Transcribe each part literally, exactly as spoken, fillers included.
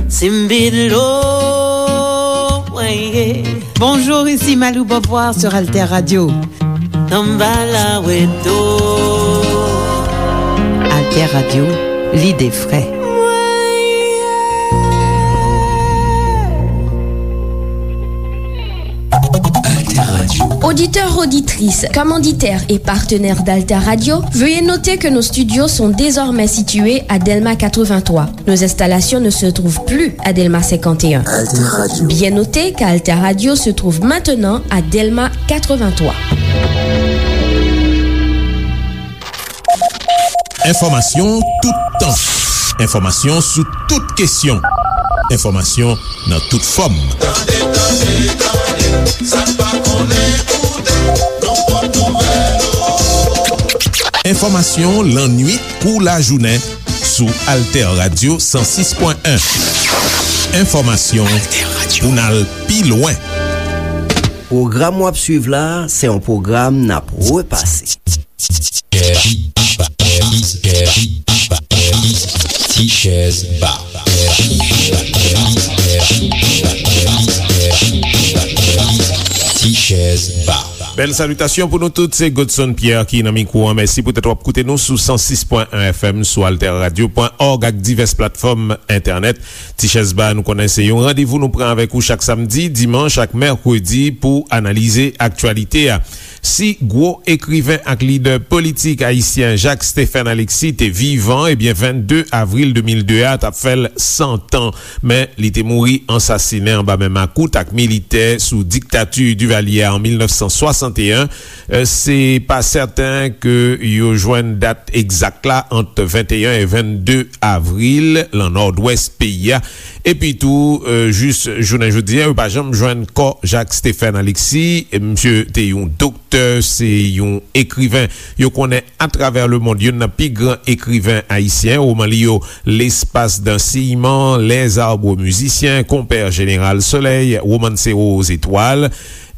Simbilo, ouais. Bonjour, ici Malou Beauvoir sur Alter Radio. Samba la weto. Alter Radio, l'idée frais. Alter Radio. Auditeurs, auditrices, commanditaires et partenaires d'Alter Radio, veuillez noter que nos studios sont désormais situés à Delma quatre-vingt-trois. Nos installations ne se trouvent plus à Delma cinquante et un. Alter Radio. Bien noter qu'Alter Radio se trouve maintenant à Delma quatre-vingt-trois. Enfòmasyon toutan. Enfòmasyon sou tout kesyon. Enfòmasyon nan tout fòm. Tande, tande, tande, sa n pa konnen koute, nan pòt nouvèl, o. Enfòmasyon lannuit kou lajounen sou Alter Radio san sis pwen en. Enfòmasyon pou n al pi lwen. Pwogram w ap swiv la a, se yon pwogram n ap repase. Tichèz Ba. Tichèz Ba. Bèl salitasyon pou nou tout, se Godson Pierre ki nan mikwo an. Mèsi poutèt w ap koute nou sou san sis pwen en F M, sou alter radio pwen org ak divès platfòm entènèt. Tichèz Ba, nou konnen se yon randevou nou pran avèk ou chak samdi, dimanch ak mèkredi pou analize aktyalite a. Si gwo ekriven ak lidè politik ayisyen Jacques Stephen Alexis te vivan, ebyen, vennde avril de mil de a t ap fè l san tan. Men, li te mouri ansasinen anba men makout ak militè sou diktati Duvalier an mil nèf san swasanteyen. Eh, se pa sèten ke yo jwenn dat egzak la ant venteyen e vennde avril lan Nòdwès peyi a. Epi tou, eh, jis jounen jodi a, yo pa janm jwenn kò Jacques Stephen Alexis. Misye te yon doktè, se yon ekriven yo konnen atravè lemonn, youn nan pi gran ekriven ayisyen. Woman li yo, L'espace d'un ciment, Les arbres musiciens, Compère Général Soleil, Romancero aux étoiles.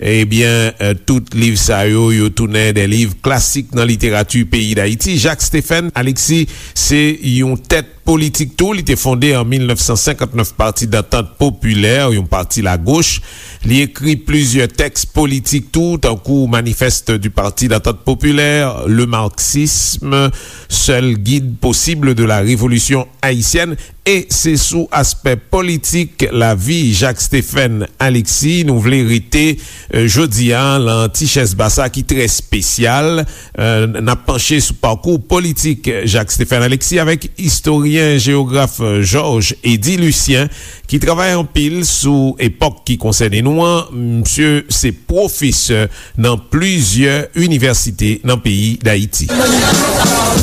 Ebyen, eh, tout liv sa yo, yo tounen de liv klasik nan literati peyi Dayiti. Jacques Stephen Alexis se yon tèt politik tou. Li te fonde an mil nèf san senkant nèf Pati Dantant Popilè, yon pati lagoch. Li ekri plizyè tèks politik tou, tankou Manifeste du Parti d'Entente Populaire, Le Marxisme, Seul guide possible de la révolution haïtienne. E se sou aspè politik lavi Jacques Stephen Alexis nou vle rete, eh, jodi a, lan Tichèz Ba sa ki trè espesyal. Eh, n ap panche sou pakou politik Jacques Stephen Alexis avèk istoryen, jewograf, eh, Georges Eddy Lucien, ki travay anpil sou epòk ki konsène nou an. Misye se pwofesè nan plizyè inivèsite nan peyi Dayiti.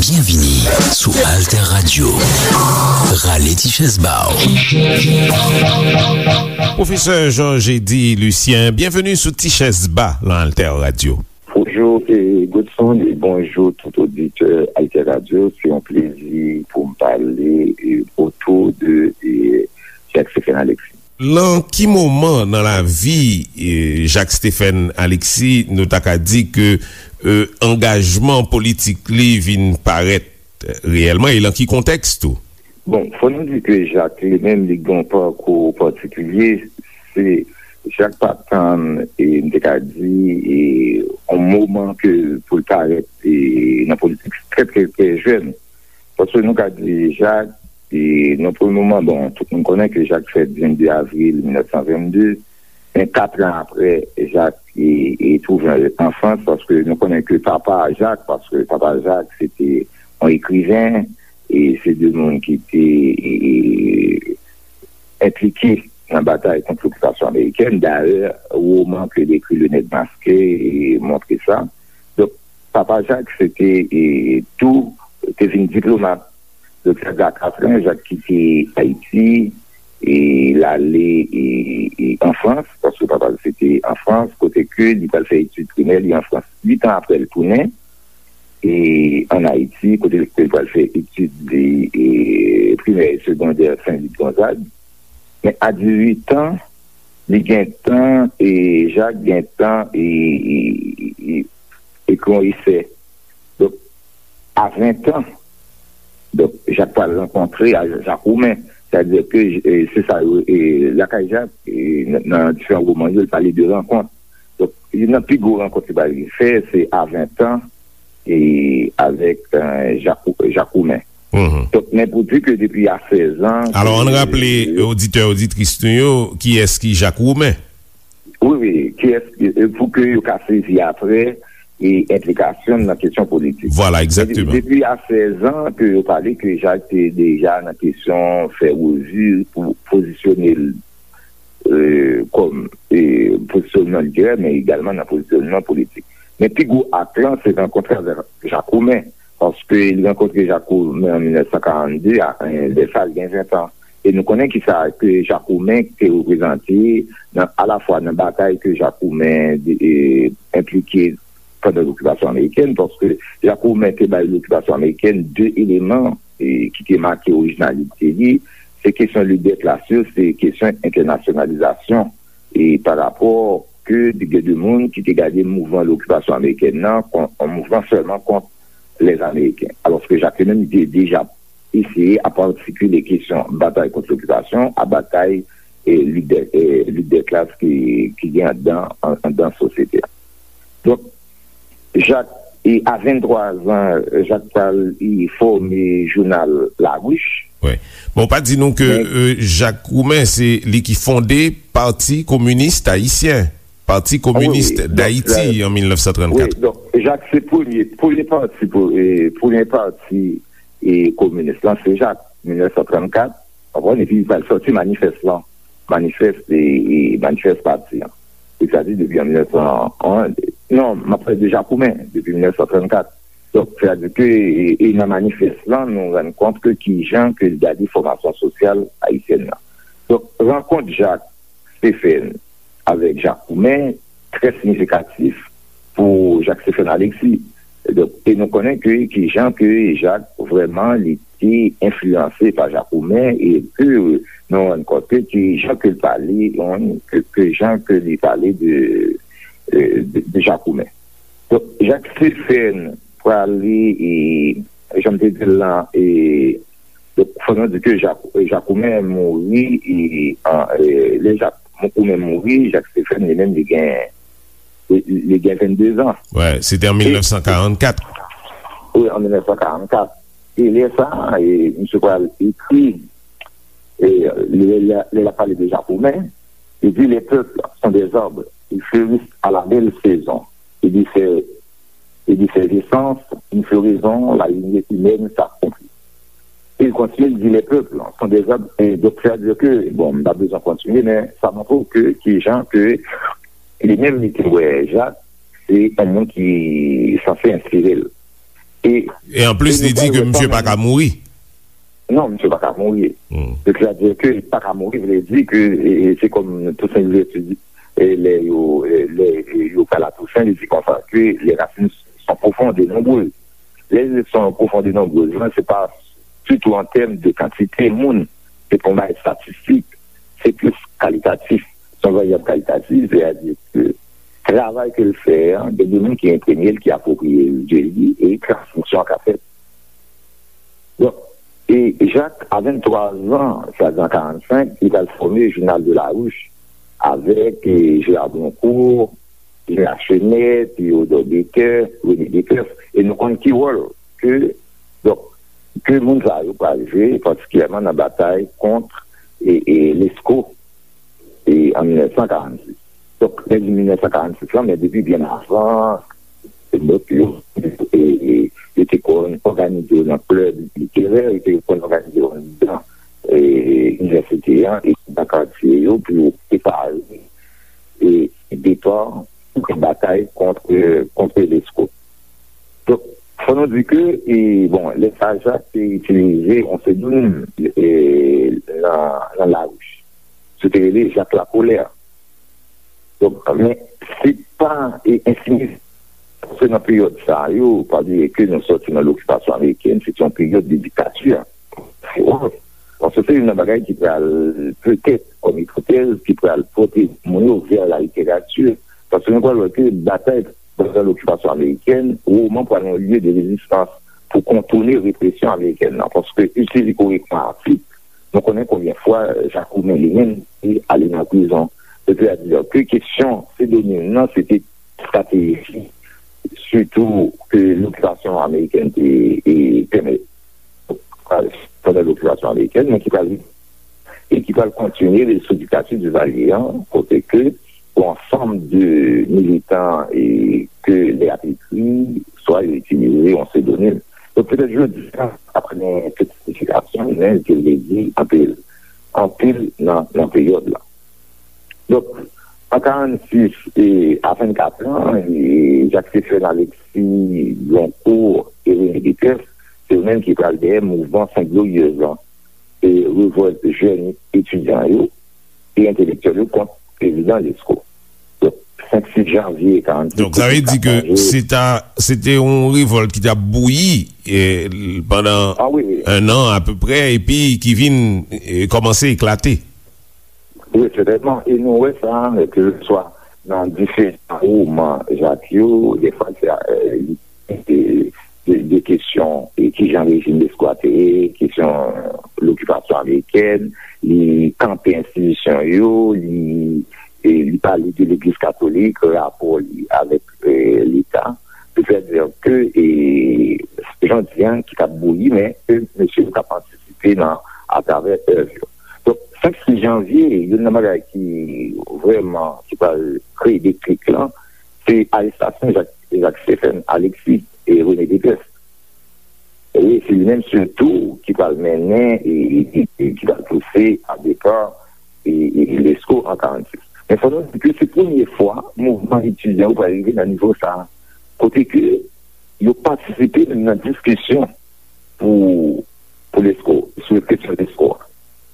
Byenvini sou Alter Radio. Rale ti chèz ba w. Pwofesè Georges Eddy Lucien, byenveni sou Ti Chèz Ba lan Alter Radio. Bonjou, e, Godson, e bonjou tout oditè Alter Radio. Se yon plezi pou m pale, e, otou de, e, Jacques Stephen Alexis. Lan ki moman nan lavi, e, Jacques Stephen Alexis nou ta ka di ke, e, angajman politik li vin parèt, e, reyèlman, e lan ki kontèks tou? Bon, fò nou di ke Jacques li menm, li gen yon pakou patikilye. Se, Jacques pa tann, e, m te ka di, e, yon moman ke pou l parèt, e, nan politik trè, trè, trè jèn. Paske nou ka di Jacques, e, nan premye moman, bon, tout moun konnen ke Jacques fèt vennde avril mil nèf san vennde, men kat an apre, Jacques, e, e, twouve l an Frans, paske nou konnen ke papa Jacques, paske papa Jacques, se te yon ekriven, e se de moun ki te, e, e, enplike nan batay kont lokipasyon amerikèn. Dayè, woman ke li ekri, Le Nèg Maske, e, montre sa. Donk, papa Jacques, se te, e, tou, te vin diplomat. Donk, Jacques gen katran, Jacques kite Ayiti, e l ale, e, e, an Frans, paske papa l se te an Frans, kote ke li pral fè etid primè li an Frans. Uit an apre, l tounen, e, ann Ayiti, kote ke l pral fè etid li, e, primè e segondè Sen Lit Gonzag. Men a dizuit an, li gentan, e, Jacques gentan, e, e, e, e, ekri yon esè. Donk, a ven an, Donk, Jak pral rankontre a Jakoumen. Sètadi ke, e, se sa yo, e, lakay Jak, e, nan, nan diferan woman yo, li pale de rankont. Donk, youn nan pi gwo rankont li pral fè, se a ven tan, e, avèk, e, Jakou-, Jakoumen. Donk, men pou di ke depi a sèz an, Alò, ann raple oditè, oditris nou yo, kiyès ki Jakoumen? Wi, wi, kiyès, e, pou ke yo ka sezi apre, e, enplikasyon nan kesyon politik. Vwala, egzakteman. Depi a sèz an ke yo pale ke Jak te deja nan kesyon fè revi pou pozisyone l, e, kòm, e, pozisyonman literè, men egalman nan pozisyonman politik. Men pi gwo ak lan, se rankontre avèk Jakoumen, paske li rankontre Jakoumen an mil nèf san karannde, a, e, lè sa, li gen ven tan. E nou konnen kisa ke Jakoumen te reprezante nan, alafwa nan batay ke Jakoumen, e, enplike pandan lokipasyon amerikèn, paske Jakoumen te bay lokipasyon amerikèn de eleman, e, ki te make orijinalite li. Se kesyon lit dè klas yo, se kesyon entènasyonalizasyon, e, pa rapò ke gen de moun ki te gade mouvman lokipasyon amerikèn nan kon yon mouvman sèlman kont lèzameyiken. Alòske Jak li menm, li te deja eseye ap atikile kesyon batay kont lokipasyon a batay, e, lit dè, e, lit dè klas ki, ki gen anndan, an-, anndan sosyete a. Donk, Jak, e, a venntwa zan, Jak pral, e, fòme jounal La Ruche. Wi. Bon, pa di nou ke, e, Jakoumen, se li ki fonde Pati Kominis Ayisyen, Pati Kominis Dayiti, an mil nèf san trannkat. Wi, donk, Jak se premye, premye pati, pou, e, premye pati, e, kominis lan, se Jak, mil nèf san trannkat, konprann, epi li pral sòti manifès lan, manifès, e, e, manifès pati an. Sètadi depi an mil nèf san, non, m ap pale de Jakoumen, depi mil nèf san trannkat. Donk, sètadi ke, e, e nan manifès lan, nou rann kont ke kijan ke l gade fòmasyon sosyal ayisyèn nan. Donk, rankont Jak Stephen avèk Jakoumen trè siyifikatif pou Jak Stephen Alexis. Donk, e nou konnen ke kijan ke Jak vrèman li te enfliyanse pa Jakoumen e ke nou rann kont ke kijan ke l pale, ke, ke jan ke li pale de, de, de Jakoumen. Donk, Jak Stephen prale, e, jan m te di l lan, e, donk, fò nou di ke Jak-, Jakoumen mouri, e, an, e, lè Jak-, Jakoumen mouri, Jak Stephen, li menm, li gen, li, li gen vennde zan. Wi, se te an mil nèf san karannkat. Wi, an mil nèf san karannkat. E lè sa, e, misye pral ekri, e, lè, lè, lè l ap pale de Jakoumen, li di, les peuples sont des arbres, ils fleurissent à la belle saison. Il dit, c'est, il dit, c'est l'essence, une floraison, la lignée humaine s'accomplit. Il continue, il dit, les peuples sont des arbres, et donc, c'est-à-dire que, bon, m pa bezwen kontinye, men sa montre w ke, kijan ke, li menm, li te wè Jak, se yon moun ki sanse enspire l. E, e anplis, li di ke misye pa ka mouri. Non, misye pa ka mouri. Sètadi ke li pa ka mouri, vle di ke, e, e, se kòm Toussaint Louverture di, e, lè yo, e, lè, e, yo pral a Toussaint, li di konsa ke les racines sont profondes et nombreuses. Les racines sont profondes et nombreuses, lan, se pa ditou an tèm de kantite moun, se pa yon bagay estatistik, se plis kalitatif. Se yon varyab kalitatif, sètadi ke travay ke l fè an, gen de moun ki enpremye l, ki apwopriye l de li, e transmisyon an ka fèt. Donk, e Jak, a venntwa zan, sètadi an karannsenk, li pral fòme Jounal de la Ruche avèk, e, Gérard Broncourt, Gérard Chenet, Théodore Baker, René Descoeuf, e nou konn ki wòl ke, donk, ke moun sa yo pral jwe, patikilyèman nan batay kont, e, e, Lesko, e, an mil nèf san karannsis. Donk, lè di mil nèf san karannsis lan, men depi byen avan, donk, yo, e, e, yo te konn òganize yo nan klèb literè, yo te konn òganize yo anndan, e, inivèsite an, e nan katye yo pou yo prepare, e, depa pou batay kont, kont Lesko. Donk, fò nou di ke, e, bon, lè sa a, Jak te itilize yon psedonim, e, nan, nan Laruche. Se te rele Jak Lakolè. Donk, men, se pa, e, ensinistre. Paske nan peryòd sa yo, pa bliye ke nou sòti nan lokipasyon amerikèn, se te yon peryòd de diktati. Paske se youn nan bagay ki pral, petèt, kòm ipotèz, ki pral pote moun yo vè la literati. Paske nou pral wè ke batay pandan lokipasyon amerikèn, woman pral yon lye de rezistans. pou kontounen represyon amerikèn nan, paske itilize korèkteman atik, nou konnen konbyen fwa Jakoumen li menm te ale nan prizon. Sètadi ke kesyon psedonim nan, se te estrateji, sitou ke lokipasyon amerikèn te, e, pèmèt, pandan lokipasyon amerikèn, men ki pral, e ki pral kontinye sou diktati Divalye an, kote ke yon ansanm de militan e ke lè y ap ekri, swa yo itilize yon psedonim. Donk, petèt jodi a, apre tout siyifikasyon, men ke vle di anpil, anpil nan, nan peryòd la. Donk, an karannsis e a vennkat an, e Jacques Stéphane Alexis, Bloncourt e René Dépès, se yo menm ki pral dèyè mouvman Sent Glorieuse lan, e revòlt jèn etidyan yo e entelektyèl yo kont prezidan Lesko. Donk, senk sis janvye karannsis, Donk, sa vle di ke se ta, se te yon revòlt ki t ap bouyi, e, pandan Ah wi, wi. en an apeprè, epi ki vin, e, kòmanse eklate. Wi, sètènman. E nou wè sa, ke se swa nan diferan woman Jak yo, defwa se, e, de, de, de kesyon, e kijan rejim Lesko a te ye, kesyon lokipasyon amerikèn, li kanpe enstitisyon yo, li, e, li pale de legliz katolik, rapò li avèk, e, Leta. Sètadi ke, e, jan di an ki t ap bouyi, men ke mesye yo t ap antisipe nan, atravè èv yo. Donk, senk sis janvye, youn nan bagay ki vrèman, ki pral kreye deklik lan, se arestasyon Jak, Jak Stephen Alexis e René Dépès. Wi, se li menm sitou ki pral mennen e, e, e ki pral pouse a depa e, e Lesko an karannsis. Men fò nou di ke se premye fwa mouvman etidyan yo pral rive nan nivo sa a, kote ke yo patisipe menm nan diskisyon pou, pou Lesko, sou kesyon Lesko a.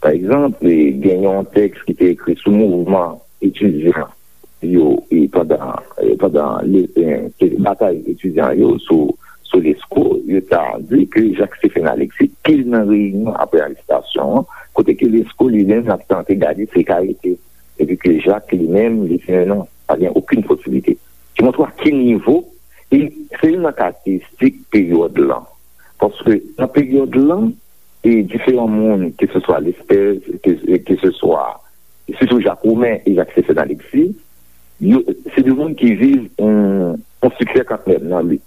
Pa egzanp, e, gen yon tèks ki te ekri sou mouvman etidyan yo, e, pandan, e, pandan le, e, ke batay etidyan yo sou, sou Lesko, yo ta di ke Jak Stephen Alexis pil nan reyinyon apre arestasyon an, kote ke Lesko li menm l ap tante gade si l ka rete, epi ke Jak li menm li di non, pa gen okenn posiblite. Ki montre a ki nivo, e se youn nan karakteristik peryòd lan. Paske nan peryòd lan, e diferan moun, ke se swa Lespèz, ke, ke se swa, sitou Jakoumen e Jak Stéphane Alexis, yo, se de moun ki viv yon, yon siksè kantmenm nan lit.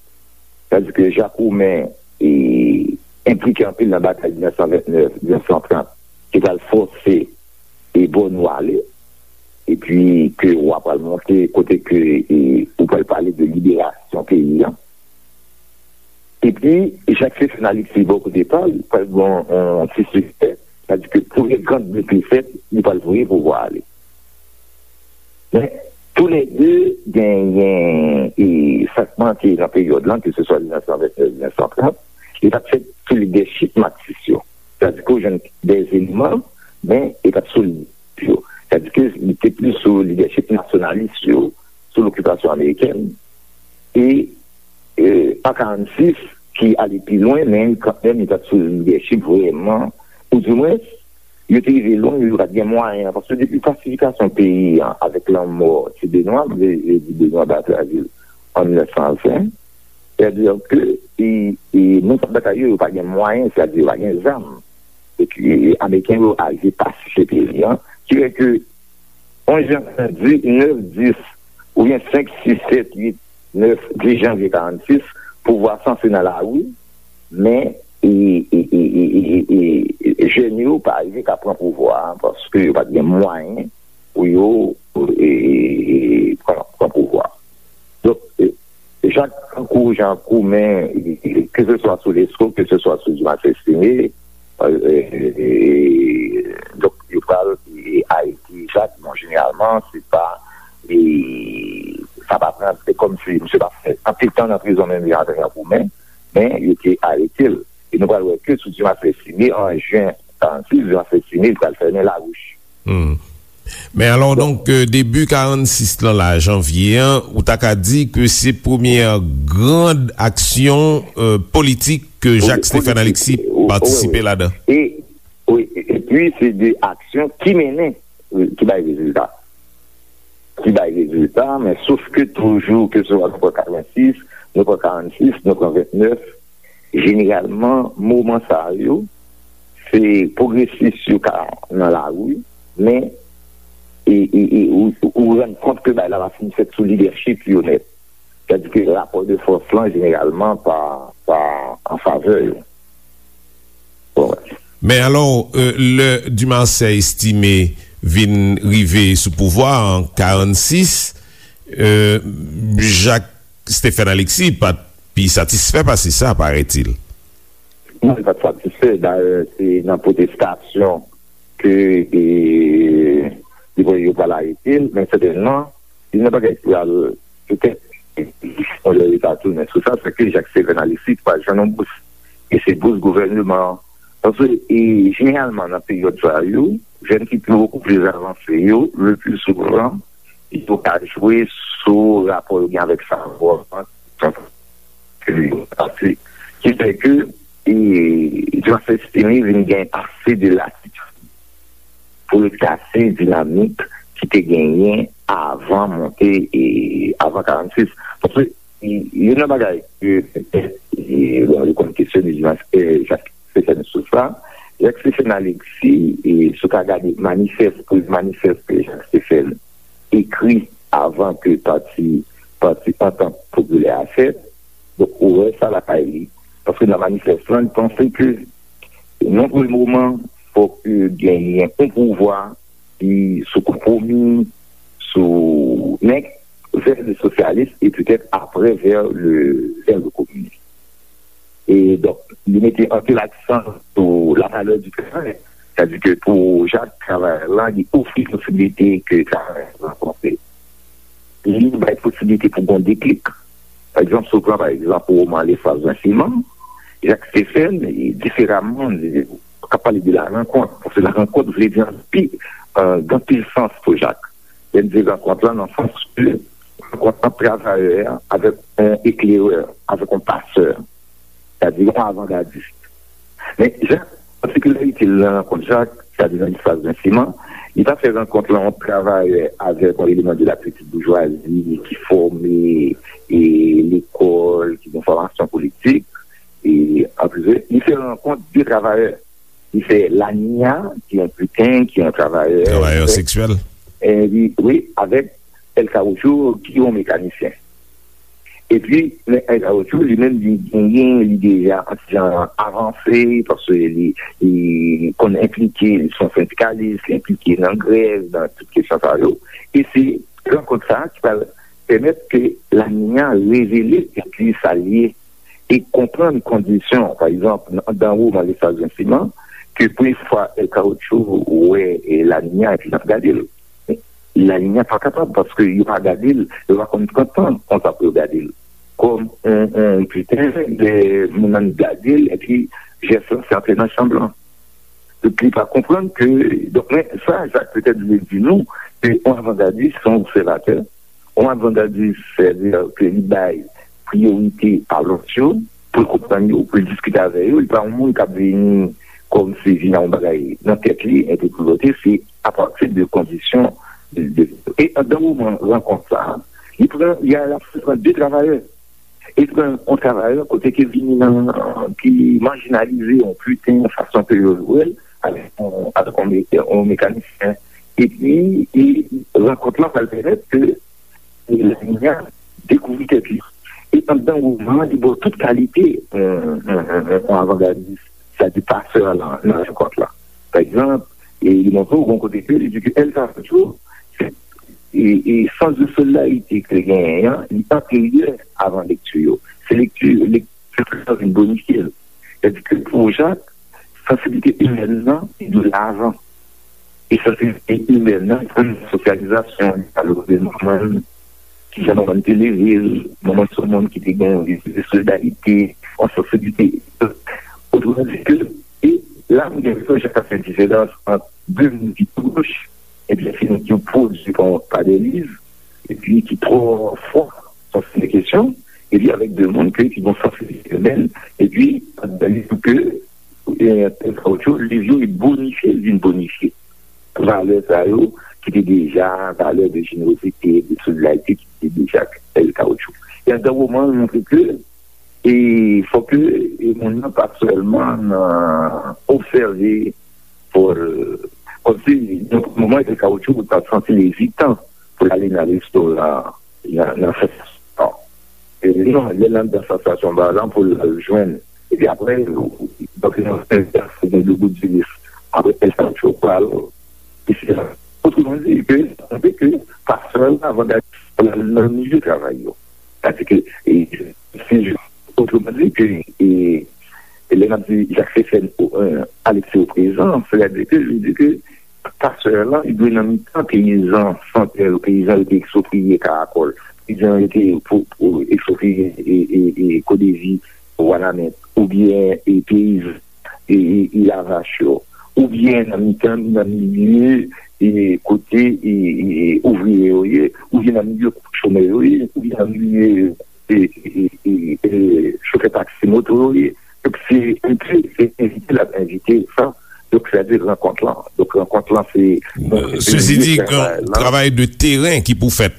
Sètadi ke Jakoumen, e, enplike anpil nan batay mil nèf san vennèf, mil nèf san trant, ki pral fòse e Bòno ale, epi ke w a pral monte kote ke, e, ou pral pale de liberasyon peyi an. Epi, Jak Stéphane Alexis bò kote pa l, pral gen yon, yon ti siksè, sètadi ke premye gran bit li fèt, li pral voye pouvwa a ale. Men, toulède genyen, e, sa k manke nan peryòd lan, ke se swa mil nèf san vennèf, mil nèf san trant, li pa t fèt sou lidèchip Maksis yo. Sètadi ke w jwenn de eleman, men li pa t sou lidèchip yo. Sètadi ke li te plis sou lidèchip nasyonalis yo, sou lokipasyon amerikèn. E, e, an karannsis, ki ale pi lwen, men kanmenm, li pa t sou lidèchip vrèman, ou di mwens, yo te rive lwen, yo pa t gen mwayen, paske depi pasifikasyon peyi an, avèk lanmò Ti Benwa, m vle, vle di Benwa Batravil, an mil nèf san ven, sètadi ke, e, e, moun k ap batay yo, yo pa gen mwayen, sètadi yo pa gen zam. Epi, e, Ameriken yo arive pasifye peyi an, ki fè ke onz jan, di, nèf, dis, oubyen senk, sis, sèt, uit, nèf, dis janvye karannsis, pouvwa sanse nan lari, men, e, e, jèn yo pa rive ka pran pouvwa a, paske yo pa t gen mwayen pou yo, e, pran, pran pouvwa. Donk, e, Jak, tankou Jakoumen, e, ke se swa sou Lesko, ke se swa sou Dimas Estimé, e, e, e, donk, yo pral, e, arete Jak, bon, jeneralman, se pa, e, sa pa pran, se kòmsi misye pa fè anpil tan nan prizon menm jan avèk Jakoumen, men yo te arete l. E nou pral wè ke sou Dimas Estimé, an jen karannsis, Dimas Estimé, li pral fèmen lawouch. Hmm. Men alò, donk, euh, debi karannsis lan la, janvye an, ou ta ka di ke se premyè gran aksyon, euh, politik ke Wi, Jacques Stéphane politik, Alexis wi, wi, patisipe wi. Ladan. E, wi, e, epi se de aksyon ki mennen, wi, ki bay rezilta. Ki bay rezilta, men sof ke toujou, ke se swa nou pran katrevensis, nou pran karannsis, nou pran vennèf, Jeneralman, moman sa yo, se pwogresis yo ka nan lari, men e, e, e, ou, ou rann kont ke bagay la pa fin fèt sou lidèchip yo nèt. Sètadi ke rapò de fòs lan, jeneralman, pa, pa an favè yo. Bon, men alò, lè Dumarsais Estimé vin rive sou pouvwa an karannsis, Jacques Stephen Alexis pa t pi satisfè pase sa, paraît-il. Non, li pa t satisfè. Dayè, se nan pwotestasyon ke li voye yo pral arete l, men sètènman, youn nan bagay ki pral petèt yon lè li ta tounen sou sa, se ke Jacques Stephen Alexis pral jwenn yon bous. E se bous gouvèneman an. Paske, e, jeneralman, nan peryòd sa yo, jèn ki pi bokou pli avanse yo, le pli souvan, yo ka jwe sou rapò yo gen avèk savwa an, ke yo pase. Ki fè ke, e, Jacques Stephen vin gen ase de latitid pou l kase dinamik ki te genyen avan monte, e, avan karannsis. Paske, e, youn nan bagay ke, e, bon, yo konn kesyone Jacques Stephen sou sa, Jacques Stephen Alexis, e, si w ka gade manifès, premye manifès ke Jacques Stephen ekri avan ke pati, pati Antant Popilè a fèt, donk, ou wè sa lakay li. Paske nan manifès lan, li panse ke, nan premye moman, fòk genyen yon pouvwa ki sou konpwomi, sou, men, vè le sosyalis e petèt apre vè le, vè le kominis. E donk, li mete anpil aksan sou la valè di travay. Sètadi ke pou Jacques, travayè lan, li ofri posiblite ke travayè lan rankontre. Li bay posiblite pou gon deklik. Pa egzanp, si w pran, pa egzanp, woman Le Sage d'un Ciment, Jacques Stephen, diferaman, k ap pale de la rankont. Paske la rankont vle di anpi, gen anpil sans pou Jacques. Lè n di rankont lan nan sans ke rankont ant travayè avèk yon eklerè, avèk yon pasè, sètadi yon avangadis. Men, Jacques, patikilarite l nan rankont Jacques, sètadi nan Lesplas Vensiman, li pa fè rankont lan ant travayè avèk yon eleman de la petite bourgeoisie ki fòme, e, lekòl, ki gen fòmasyon politik, e, an prive, li fè rankont de travayè. Li fè Laninya, ki yon piten, ki yon travayè. Travayè seksyèl. E, wi, avèk El Caoutchouc, ki yon mekanisyen. Epi, men El Caoutchouc, li menm, li genyen, li deja yon ti jan avanse, paske li, li konn enplike, li se yon sendikalis, li enplike nan grèv, nan tout kesyon sa yo. E se rankont sa a ki pral pèmèt ke Laninya revele ki sa l ye e konprann kondisyon, pa egzanp, anndan woman Lesplas Vensiman, ke premye fwa El Caoutchouc wè, e, Laninya epi l ap gade l. Laninya pa kapab, paske yo pa gade l, yo pa konn pran tan konsa pou yo gade l. Kòm yon, yon piten, lè moun nan gade l, epi jès lan se antre nan chanm lan. Donk, li pa konprann ke, donk, men sa, Jacques petèt vle di nou, ke yon avangadis, se yon obsèvatè, yon avangadis, sètadi ke li bay priyorite a lòt yo, pou l konprann yo, pou l diskite avè yo. Li pa yon moun k ap vini kòmsi vin ak yon bagay nan tèt li, epi pou vote, se apati de kondisyon de, de, e anndan moman rankont sa a, li pran, li al ap pran de travayè. E pran yon travayè kote ke vini nan, ki majinalize, yon piten, yon fason ke yo wè l, avèk yon, avèk yon me-, yon mekanisyen. Epi, e rankont lan pral pèmèt ke Laninya dekouvri tèt li. E anndan woman an, li ba w tout kalite, yon, yon, yon, yon avangadis, sètadi pasè lan, nan rankont lan. Pa egzanp, e li montre w yon kote ke li di ke El Caoutchouc, se, e, e sans de solidarité ke l genyen an, li anteryè avan lekti yo. Se lekti, lekti sa vin bonifye l. Sètadi ke pou Jacques, sansiblite imèn nan, se de lajan. E sansiblite imèn nan, se sosyalizasyon, li pale de manman l, kijan manman l te leve l, manman l se yon moun ki te gen yon espri de solidarite, yon sansiblite. Otreman di ke, e la, m gen enpresyon Jacques ap fè diferans ant de moun ki pwòch, epi fini ki pwodui pa, pa de liv, epi ki twò fò sou sèten kesyon, epi avèk de moun ke, ki gon sansiblite imèn, epi, anndan liv ke, e, El Caoutchouc, liv yo, li bonifye, li vin bonifye valè sa yo, ki te deja, valè de jenerozite, de solidarite, ki te deja El Caoutchouc. E anndan woman an, li montre ke, E fòk ke e moun nan pa sèlman nan obsève, fò l, kòmsi nan moman e kawotchou pou l ta santi l ezitan pou l ale nan restoran, nan, nan sansasyon. E non, lè l anndan sansasyon ba lan pou l al jwenn. Epi apre, donk, nan yon sèl fè, fò gen de bout di lis. Apre, el kawotchou pral, e se la. Otreman di, ke, sanble ke pastè la, avan dal nan milye travay yo. Sètadi ke, e, se jis, otreman di ke, e, e lè n ap di Jacques Stéphane, e, Alexis au présent, sètadi ke, li di ke pastè la, li dwe nan mitan peyizan santèl, peyizan yo te ekspropriye Karakòl, peyizan yo te po-, po-, ekspropriye, e, e, e, Kodevi, Wanament, oubyen, e, peyizan, e, e, e, Lavach yo, oubyen nan mitan, nan milye, e, kote, e, e, e, ouvriye yo ye, oubyen nan milye chomè yo ye, oubyen nan milye, e, e, e, e, e, chofè taksi moto yo ye. Donk, se envite, se envite l ap envite sa. Donk, sètadi rankont lan. Donk, rankont lan, se, bon, se Sesi di, milye travay lan. Travay de teren ki pou fèt.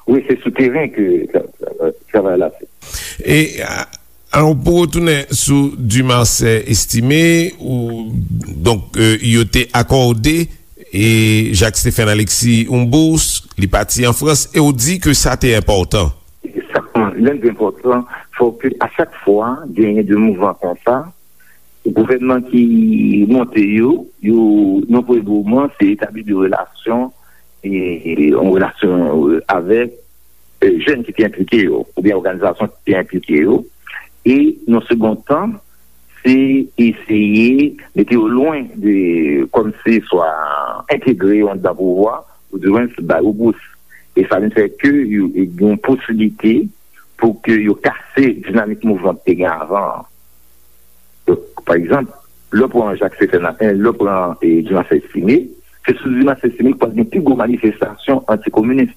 Wi, se sou teren ke tra-, tra-, travay la fèt. E, a, alò, pou retounen sou Dumarsais Estimé, ou, donk, e, yo te akòde, e, Jacques Stéphane Alexis yon bous, li pati an Frans, e ou di ke sa te enpòtan. Sa, lè l te enpòtan, fò ke a chak fwa genyen de mouvman konsa, gouvènman ki monte yo, yo, nan premye moman, se etabli de relasyon, e, yon relasyon, e, avèk, e, jèn ki te enplike yo, oubyen òganizasyon ki te enplike yo. E, nan segond tan, se eseye mete yo lwen de, kòmsi swa entegre yo anndan pouvwa, oudimwens ba yo bous. E sa vin fè ke yo, yo gen yon posiblite pou ke yo kase dinamik mouvman ki te gen avan an. Donk, pa egzanp, lè w pran Jacques Stéphane, lè w pran, e, Dumarsais Estimé, se sou Dumarsais Estimé ki pral gen pi gwo manifestasyon antikominis.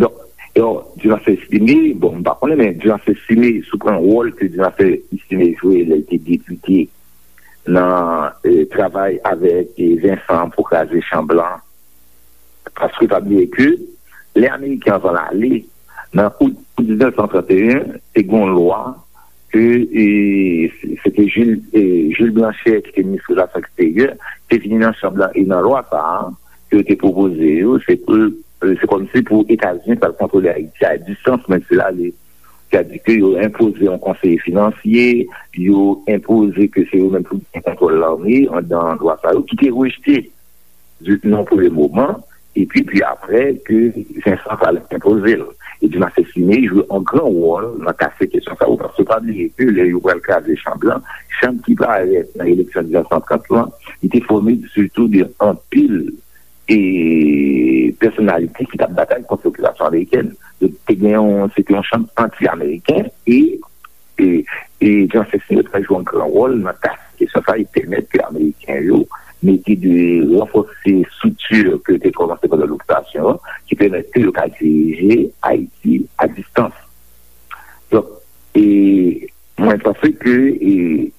Donk, e, Dumarsais Estimé, bon, m pa konnen, men Dumarsais Estimé, si w pran wòl ke Dumarsais Estimé jwe lè l te depite nan, e, travay avèk, e, Vincent pou kraze Chan Blan, paske pa bliye ke lè Ameriken an pral ale, nan out diznèf san tranteyen, te gen yon lwa ke, e, se te Jules, e, Jules Blanchet, ki te minis relasyon eksteryè, te vini nan chanm lan, e nan lwa sa a, ke yo te pwopoze yo, se pou, e, se kòmsi pou Etazini pral kontwole Ayiti a distans, menm si l ale. Sètadi ke yo enpoze yon konseye finansye, yo enpoze ke se yo menm pou gen kontwòl lame anndan lwa sa yo, ki te rejte di, nan premye moman, epi, pi apre, ke Vincent pral enpoze l. E Dumarsais Estimé jwe yon gran wòl nan kase kesyon sa yo, paske pa bliye ke lè yo pral kraze Chan Blan, Chan ki parèt nan eleksyon diznèf san trant lan, li te fòme sitou de anpil e pèsonalite ki t ap batay kont lokipasyon amerikèn. Donk, te gen yon, se te yon Chan anti-ameriken e, e, e Dumarsais Estimé te jwe yon gran wòl nan kase kesyon sa e pèmèt ke Ameriken yo mete de ranfòse estrikti ke yo te kòmanse pandan lokipasyon an, ki pèmèt ke yo ka dirije Ayiti a distans. Donk, e, mwen panse ke, e,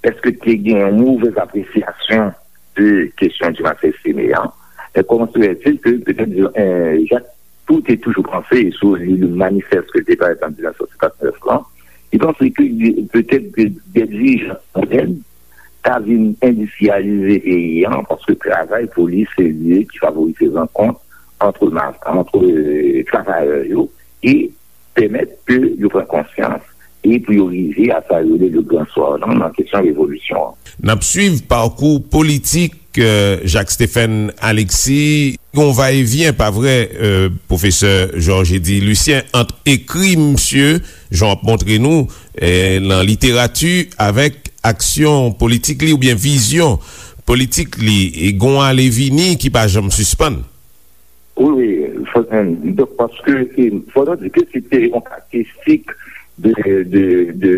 èske te gen yon movèz apresyasyon de kesyon Dumarsais Estimé an? E comment se fait-il que peut-être, e, Jacques Tout te toujou panse, e si w li le manifès ke l te parèt an diznèf san senkannnèf lan, li panse ke petèt ke de dirijan modèn ta vin endistriyalize peyi an, paske travay pou li se lye ki favorize rankont ant ma-, ant, e, travayè yo e pèmèt ke yo pran konsyans e pou yo rive a sa yo rele le grand soir lan nan kesyon revolisyon an. N ap swiv pakou politik, e, Jacques Stéphane Alexis. Gon va e vyen, pa vre, e, pwofesè Georges Eddy Lucien, ant ekri misye, jan w ap montre nou, e, nan literati, avèk aksyon politik li oubyen vizyon politik li, e gon ale vini ki pa janm sispann. Wi, wi, fò, donk, paske, e, fò nou di ke se te yon karakteristik de, de, de,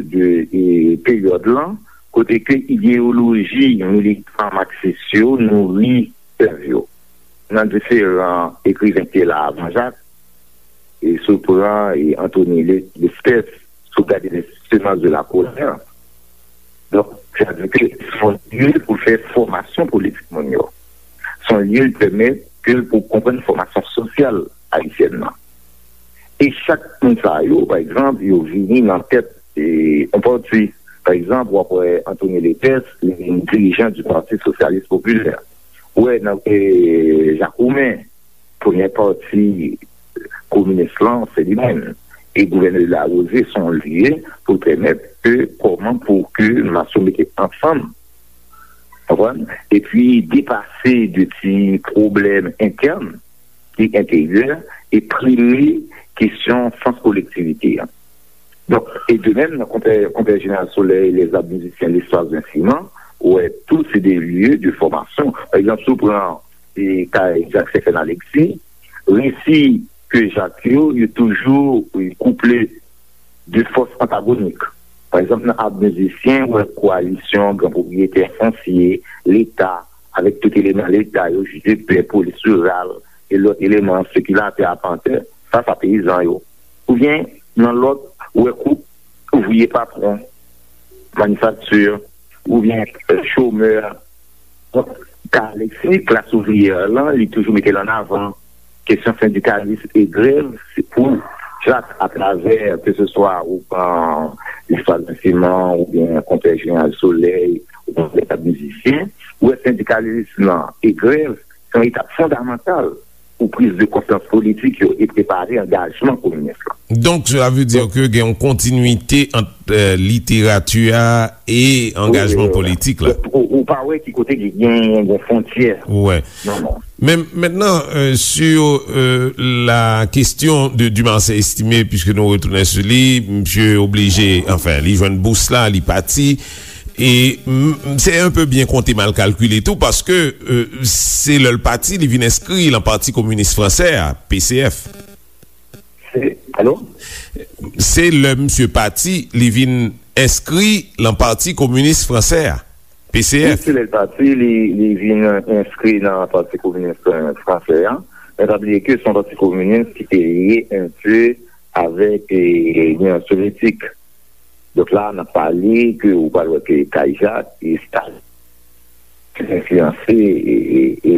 de, e, peryòd lan, kote ke ideyoloji militan maksis yo nouri sèv yo. Nan diferan ekriven ki te la avan Jak, e si w pran, e, Anthony Le-, Lespès, si w gade Les Semences de la Colère, donk, sa vle di ke se yon lye pou fè fòmasyon politik moun yo. Se yon lye ki pèmèt ke pou konprann fòmasyon sosyal ayisyèn nan. E chak moun sa yo, pa egzanp, yo vini nan tèt e, yon pati. Pa egzanp, w ap wè Anthony Letès, li vin dirijan du Parti Socialiste Populaire. Ou wè nan e, Jakoumen, premye pati kominis lan, se li menm. E gouvènè Larose se yon lye pou l pèmèt ke kòman pou ke mas yo mete ansanm, konprann? Epi depase de ti pwoblèm entèn ki enteryè e prime kesyon sans kolektivite an. Donk, e de menm, nan konpè, konpè Jeneral Soleil, Les Arts Musiciens, L'Histoire d'un Ciment, ou wè tou se de lye de fòmasyon. Pa egzanp, si w pran e, kay Jak Stephen Alexis, resi ke Jak yo, yo toujou e, kouple de fòs antagonik. Pa egzanp, nan Art Musiciens, ou wè koalisyon gran pwopriyetè fonsye, Leta, avèk tout eleman Leta yo, jidepè, polis riral, e lòt eleman, sekilatè, apantè, sa, sa peyizan yo. Oubyen, nan lòt, ou wè koup ouvriye patwon, manifakti, oubyen e, chomè. Donk, ka Alexis, klas ouvriyè lan, li toujou mete l an avan. Kesyon sendikalis e grèv, se pou Jak, atravè, ke se swa ou pran L'Histoire d'un Ciment, oubyen Konpè Jeneral Soleil, oubyen Les Arts Musiciens, ou wè sendikalis lan e grèv, se yon etap fondamantal pou priz de konsyans politik yo e prepare angajman kominis lan. Donk, cela veut dire que gen yon kontinwite ant e, literati a e angajman politik la. Ou, ou pa wè ki kote ki gen, gen fwontyè. Wè. Non, non. Men mentnan, e, sur e, la question de Dumarsais Estimé, puisque nou retounen sou li, misye oblije, anfen, li jwenn bous la, li pati. E m, m, se un peu bien konte, mal kalkile tou, paske e, se lè l pati, li vin enskri lan Pati Kominis Fransè a, P C F. Se, alo? Se lè misye pati, li vin enskri lan Pati Kominis Fransè a, P C F. Wi, se lè l pati, li, li vin enskri nan Pati Kominis, e, Fransè a. Men pa bliye ke se yon pati kominis ki te lye un peu avèk, e, Linyon Sovyetik. Donk la, n ap pale ke ou pral wè ke kay Jak e Stalin enfliyanse, e, e, e,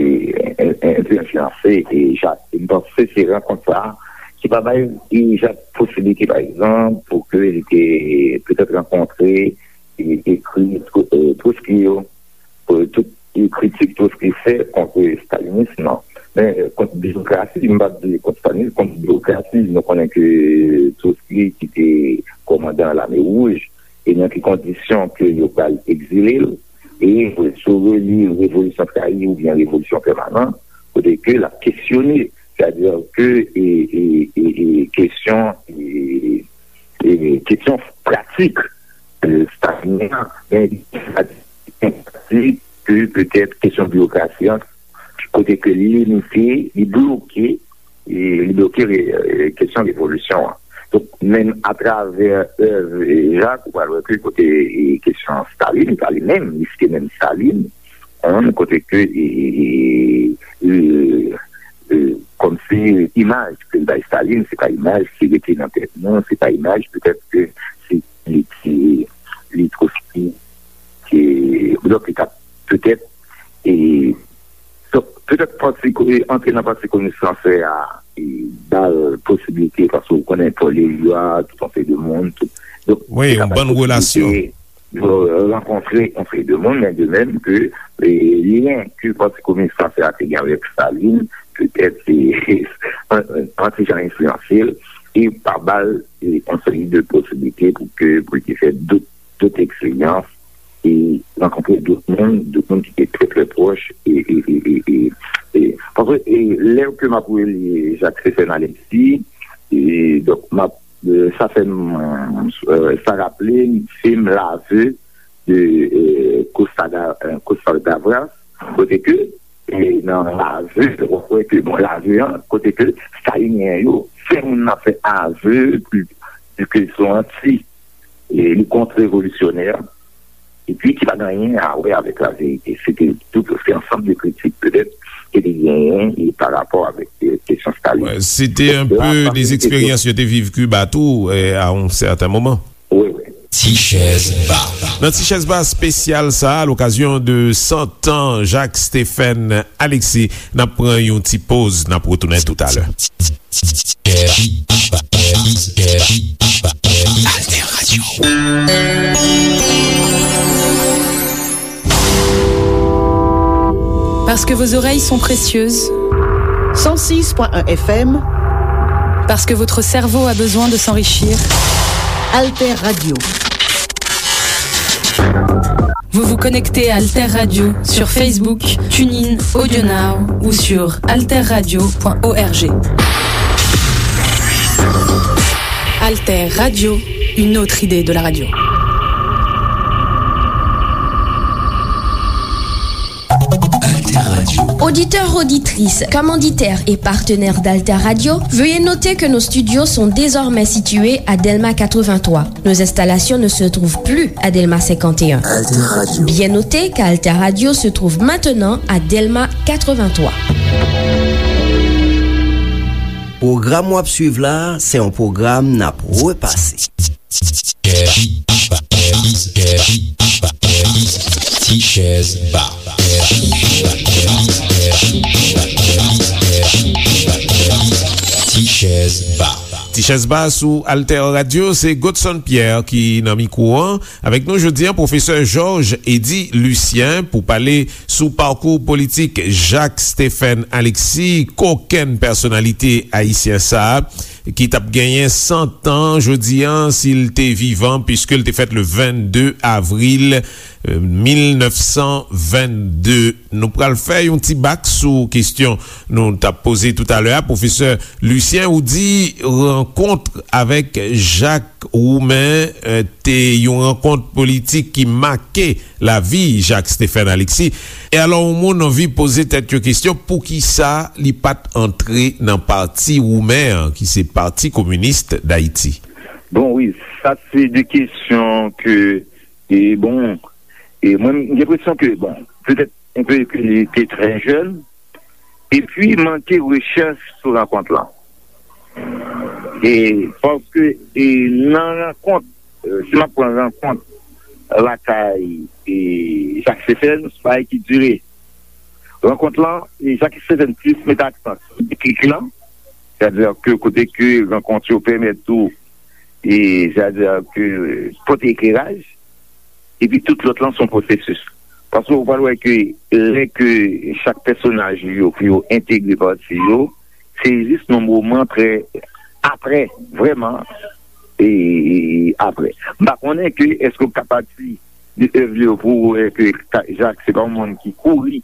en, en, enfliyanse, e, Jak. E m panse se rankont sa a ki pa bay, e, Jak posiblite, pa egzanp, pou ke li te petèt rankontre, e, ekri Tro-, e, Trotsky yo, pou tout, e, kritik Trotsky fè kont stalinis, non. Men, e, kont birokrasi, m p ap di kont stalinis, kont birokrasi, nou konnen ke Trotsky ki te kòmandan Lame Wouj, e nan ki kondisyon ke yo pral egzile l, e si w reli Revolisyon Trayi oubyen Revolisyon Pèmanan, kote ke l ap kesyone, sètadi ke, e, e, e, e, kesyon, e, e, kesyon pratik, e, stalinyen an, men li pratik ke petèt kesyon biwokrasi an, kote ke li limite, li bloke, e, li bloke re-, e, kesyon revolisyon an. Donk, menm atravè èv, e, Jak, ou pral wè ke kote, e, kesyon Stalin, pa li menm, li site menm Stalin, hein, kote ke, e, e, e, e, e, kòmsi imaj ke l bay Stalin, se pa imaj ki rete nan tèt nou, se pa imaj petèt ke se li ki, li Trotsky, ke, donk, li t ap petèt, e, donk, petèt pati ko-, e, antre nan Pati Kominis Fransè a, e, ba l posiblite, paske ou konnen Paul Éluard, tout yon seri de moun, tout. Donk, wi, se yon bann relasyon. Yo rankontre yon seri de moun, men de menm ke, e, lyen ke Pati Kominis Fransè a te gen avèk Stalin, petèt, se, an, an ti jan enfliyanse l, e pa ba l, e, yon seri de posiblite pou ke, pou l te fè dòt, dòt eksperyans, e rankontre dòt moun, dòt moun ki te trè, trè pwòch, e, e, e, e, e, e, paske, e, lè ke m ap reli Jak Stephen Alexis, e, donk, m ap, e, sa fè m, e, sa raple m fim L'aveu de, e, Costa Da-, e, Costa Gavras, kote ke, e, nan L'aveu, w ap wè ke, bon, L'aveu an, kote ke Stalinyen yo fè moun nan fè aveu ke, ke se yon anti, e, li kont revolisyonè, epi ki pa gen anyen a wè avèk laverite. Se te tout, se ansanm de kritik, petèt, ke te genyen, e, pa rapò avèk, e, kesyon Stalin. Wè, se te un peu des expériences yo te viv Kiba tou, e, à un certain moment. Wi, wi. Ti Chèz Ba. Nan Ti Chèz Ba espesyal sa a, à l'occasion de cent ans Jacques Stephen Alexis, n ap pran yon ti poz, n ap retounen toutalè. Ti Chèz Ba. Alter Radio. Parce que vos oreilles sont précieuses. Cent six point un F M. Parce que votre cerveau a besoin de s'enrichir. Alter Radio. Vous vous connectez à Alter Radio sur Facebook, TuneIn, AudioNow ou sur alter radio point org. Alter Radio, une autre idée de la radio. Alter Radio. Auditeurs, auditrices, commanditaires et partenaires d'Alter Radio, veuillez noter que nos studios sont désormais situés à Delma quatre-vingt-trois. Nos installations ne se trouvent plus à Delma cinquante et un. Alter Radio. Bien noter qu'Alter Radio se trouve maintenant à Delma quatre-vingt-trois. Pwogram w ap swiv la, se yon pwogram n ap repase. Ti chèz ba. Ti chèz ba. Ti chèz ba sou Alter Radio, se Godson Pierre ki nan mikwo an. Avèk nou jodi a, pwofesè Georges Eddy Lucien pou pale sou pakou politik Jacques Stephen Alexis, kokenn pèsonalite ayisyen sa a, ki t ap genyen san tan jodi a, si l te vivan, piske l te fèt le vennde avril, euh, mil nèf san vennde. Nou pral fè yon ti bak sou kesyon nou t ap poze toutalè a. Pwofesè Lucien, ou di rankont avèk Jacques Roumain, euh, te yon rankont politik ki make lavi Jacques Stephen Alexis. E alò, yon moun anvi poze tèt yo kesyon, poukisa li pa t antre nan pati Roumen an, ki se Pati Kominis Dayiti? Bon, wi, sa se de kesyon ke, e bon, e mwen, m gen enpresyon ke, bon, petèt, enpe ke li te trè jèn, epi manke rechèch sou rankont lan. E paske, e nan rankont, e, si m ap pran rankont lakay, e, Jacques Stephen, se pa ki dire. Rankont lan, e, Jacques Stephen plis mete aksan sou deklik lan, sètadi ke kote ke rankont yo pèmèt ou, e, sètadi ke pote ekleraj, epi tout lòt lan se yon pwosesis. Paske ou pral wè ke lè ke chak pèsonaj yo pou yo entegre pati yo, se jis nan moman trè apre, vrèman, e apre. M pa konnen ke èske w ka pati de èv li yo pou w wè ke Jacques se pa yon moun ki kouri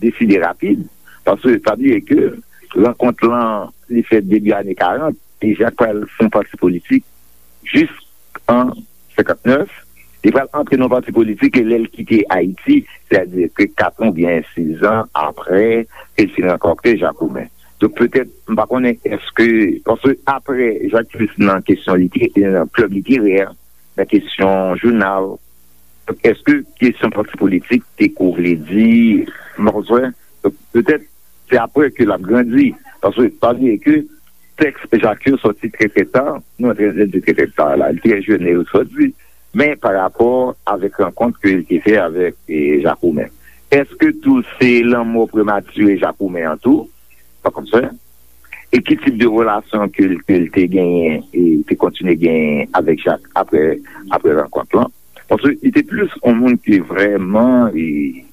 deside rapid, paske pa bliye ke rankont lan, li fèt debi ane karant, e Jacques pral fè yon pati politik jis an senkantnèf, li pral antre nan yon pati politik e lè l kite Ayiti, sètadi ke kat an oubyen sis an apre ke l fin rankante Jacques Roumain. Donk, petèt, m pa konnen èske, paske apre Jacques plis nan kesyon lite-, nan klèb literè, nan kesyon jounal, donk, èske kesyon pati politik te kou vle di, m pa konn, donk, petèt, se apre ke l ap grandi. Paske, pa bliye ke tèks Jacques yo sòti trè, trè ta, nou antre nan di trè, trè ta la, li trè jèn lè yo sòti, men pa rapò avèk rankont ke l te fè avèk, e, Jacques Roumain. Èske tou se lanmò prematire Jacques Roumain an tou? Pa konn sa. E ki tip de relasyon ke l, ke l te genyen, e te kontinye genyen avèk Jacques apre, apre rankont lan? Paske li te plis yon moun ki vrèman, e,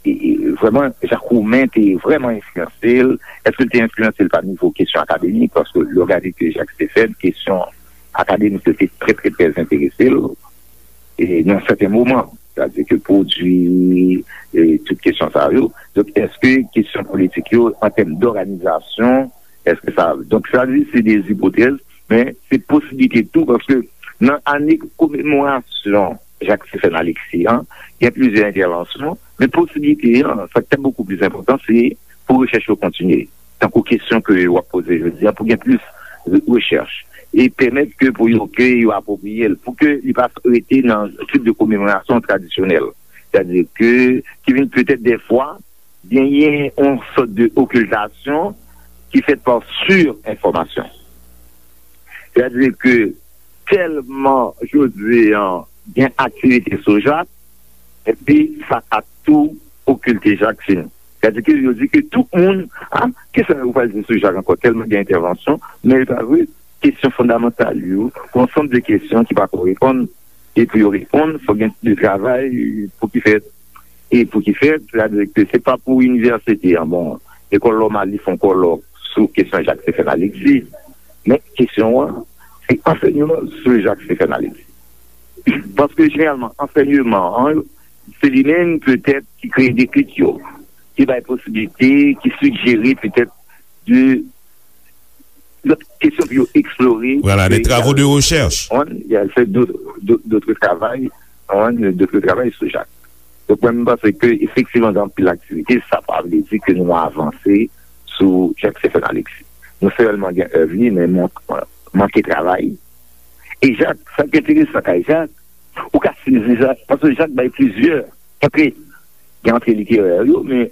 e, e, vrèman, Jacques Roumain te vrèman enfliyanse l. Èske l te enfliyanse l pa nivo kesyon akademik? Paske lè w gade ke Jacques te fè, kesyon akademik yo te trè, trè, trè enterese l, e nan sèten moman, sètadi ke pwodui, e tout kesyon sa yo. Donk, èske kesyon politik yo, an tèm dòganizasyon, èske sa, donk, sa di se de ipotèz, men se posiblite tou, paske nan ane komemorasyon Jacques Stephen Alexis an, gen plizyè entèvansyon, men posiblite an, sa ki te bokou pli enpòtan, se pou rechèch yo kontinye. Tankou kesyon ke w ap poze jodi a, pou gen plis re-, rechèch. E pèmèt ke pou yo, ke yo apwopriye l, pou ke li pa rete nan tip de komemorasyon tradisyonèl. Sètadi ke, ki vin petèt dèfwa, genyen yon sòt de okiltasyon ki fèt pa sirenfòmasyon. Sètadi ke tèlman jodi a gen aktivite sou Jacques, epi sa ka tou okilte Jacques fini. Sètadi ke yo di ke tout moun, a, kisa yo pral di sou Jacques ankò? Tèlman gen entèvansyon, men li pa vre. kesyon fondamantal yo, pou ansanm de kesyon ki pa ko reponn, e pou yo reponn, fò gen de travay pou ki fèt, e pou ki fèt, sètadi ke se pa pou inivèsite an, bon, lekòl nòmal li fè yon kòlòk sou kesyon Jak Stephen Alexis, men kesyon an, se ansèyman sou Jak Stephen Alexis. Paske jeneralman, ansèyman an, se li menm petèt ki kreye deklik yo, ki bay posibilite, ki sijere petèt de lòt kesyon pou yo eksplore. Voilà, des travaux de recherche. On, il y a fait d'autres, d'autres, d'autres travail, on, d'autres travail sou Jak. Donk, mwen, m panse ke efektivman gen anpil aktivite, sa pa vle di ke nou avanse sou Jak Stephen Alexis. Nou sèlman gen èv li, men man-, manke travay. E Jak, sa k enteresan kay Jak, ou ka sezi Jak, paske Jak bay plizyè antre. Gen antre literè yo, men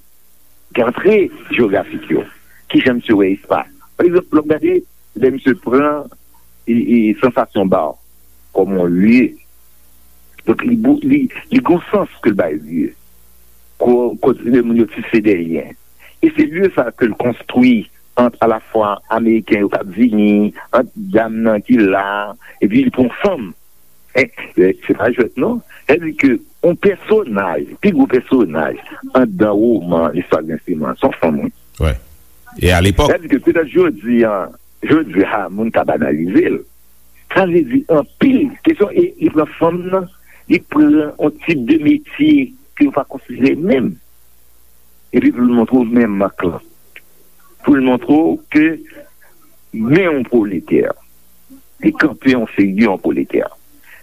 gen antre jewografik yo. Kijan misye wè espas? Pa egzanp, lè w gade, lè misye pran e, e, sansasyon ba w kòm yon lye. Donk, li, bou- li, li gon sans ke l bay lye. Ko- kote moun yo tise de lyen. E se lye sa ke l konstwi ant alafwa Ameriken yo k ap vini, ant dam nan ki la, epi li pran fanm. Eh, eh, se pa jwèt non. Sa di ke yon pèsonaj, pi gwo pèsonaj anndan woman Listwa Grenseman, se yon fanm, wi. Wè. E alepòk. Sa di ke petèt jodi a, jodi a, moun ka banalize l. Sa vle di anpil kesyon, e li pran fanm nan, li pran yon tip de metye ke yo pa konsidere menm. Epi pou l montre w menm mank lan. Pou l montre w ke men yon pwoletè. Li kanpe yon figi yon pwoletè.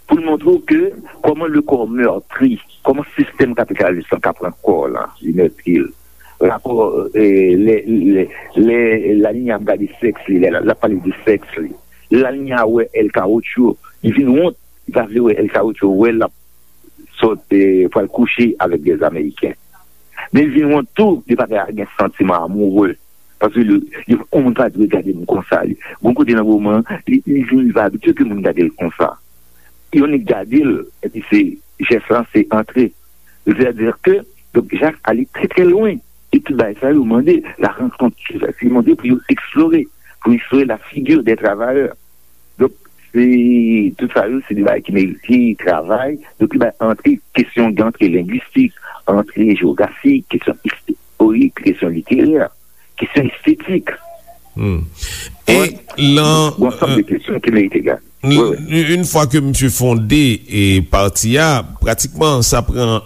Pou l montre w ke kòman le corps meurtri, kòman sistèm kapitalis lan ka pran kò w lan, li meurtri l. Rapò, eh, lè, lè, lè Lalinya ap gade sèks li, lè l ap pale de sèks li. Lalinya wè El Carocho, li vin wont, li pa vle wè El Carocho, wè l ap sòt, eh, pral kouche avèk de Ameriken. Men li vin wont tou, li pa ka gen santiman amoureux. Paske li, li, yon moun pa dwe gade m konsa. Li, gon kote nan moman, li, li vin, li pa abitye ke moun gade l konsa. Yon nèg gade l, epi se jès lan, se antre. Sètadi ke, donk, Jak ale trè, trè lwen. E tout bagay sa yo mande la rankont, se mande pou yo eksplore, pou eksplore la figure des travailleurs. Donk, se, tout sa yo, se de bagay ki merite travay. Donk, li bay antre kesyon, gen antre lengwistik, antre jewografik, kesyon istorik, kesyon literè, kesyon estetik. Hmm. E lan, yon ansanm de kesyon ki merite gade. Wi, wi. Yon fwa ke misye fonde e pati a, pratikman, sa pran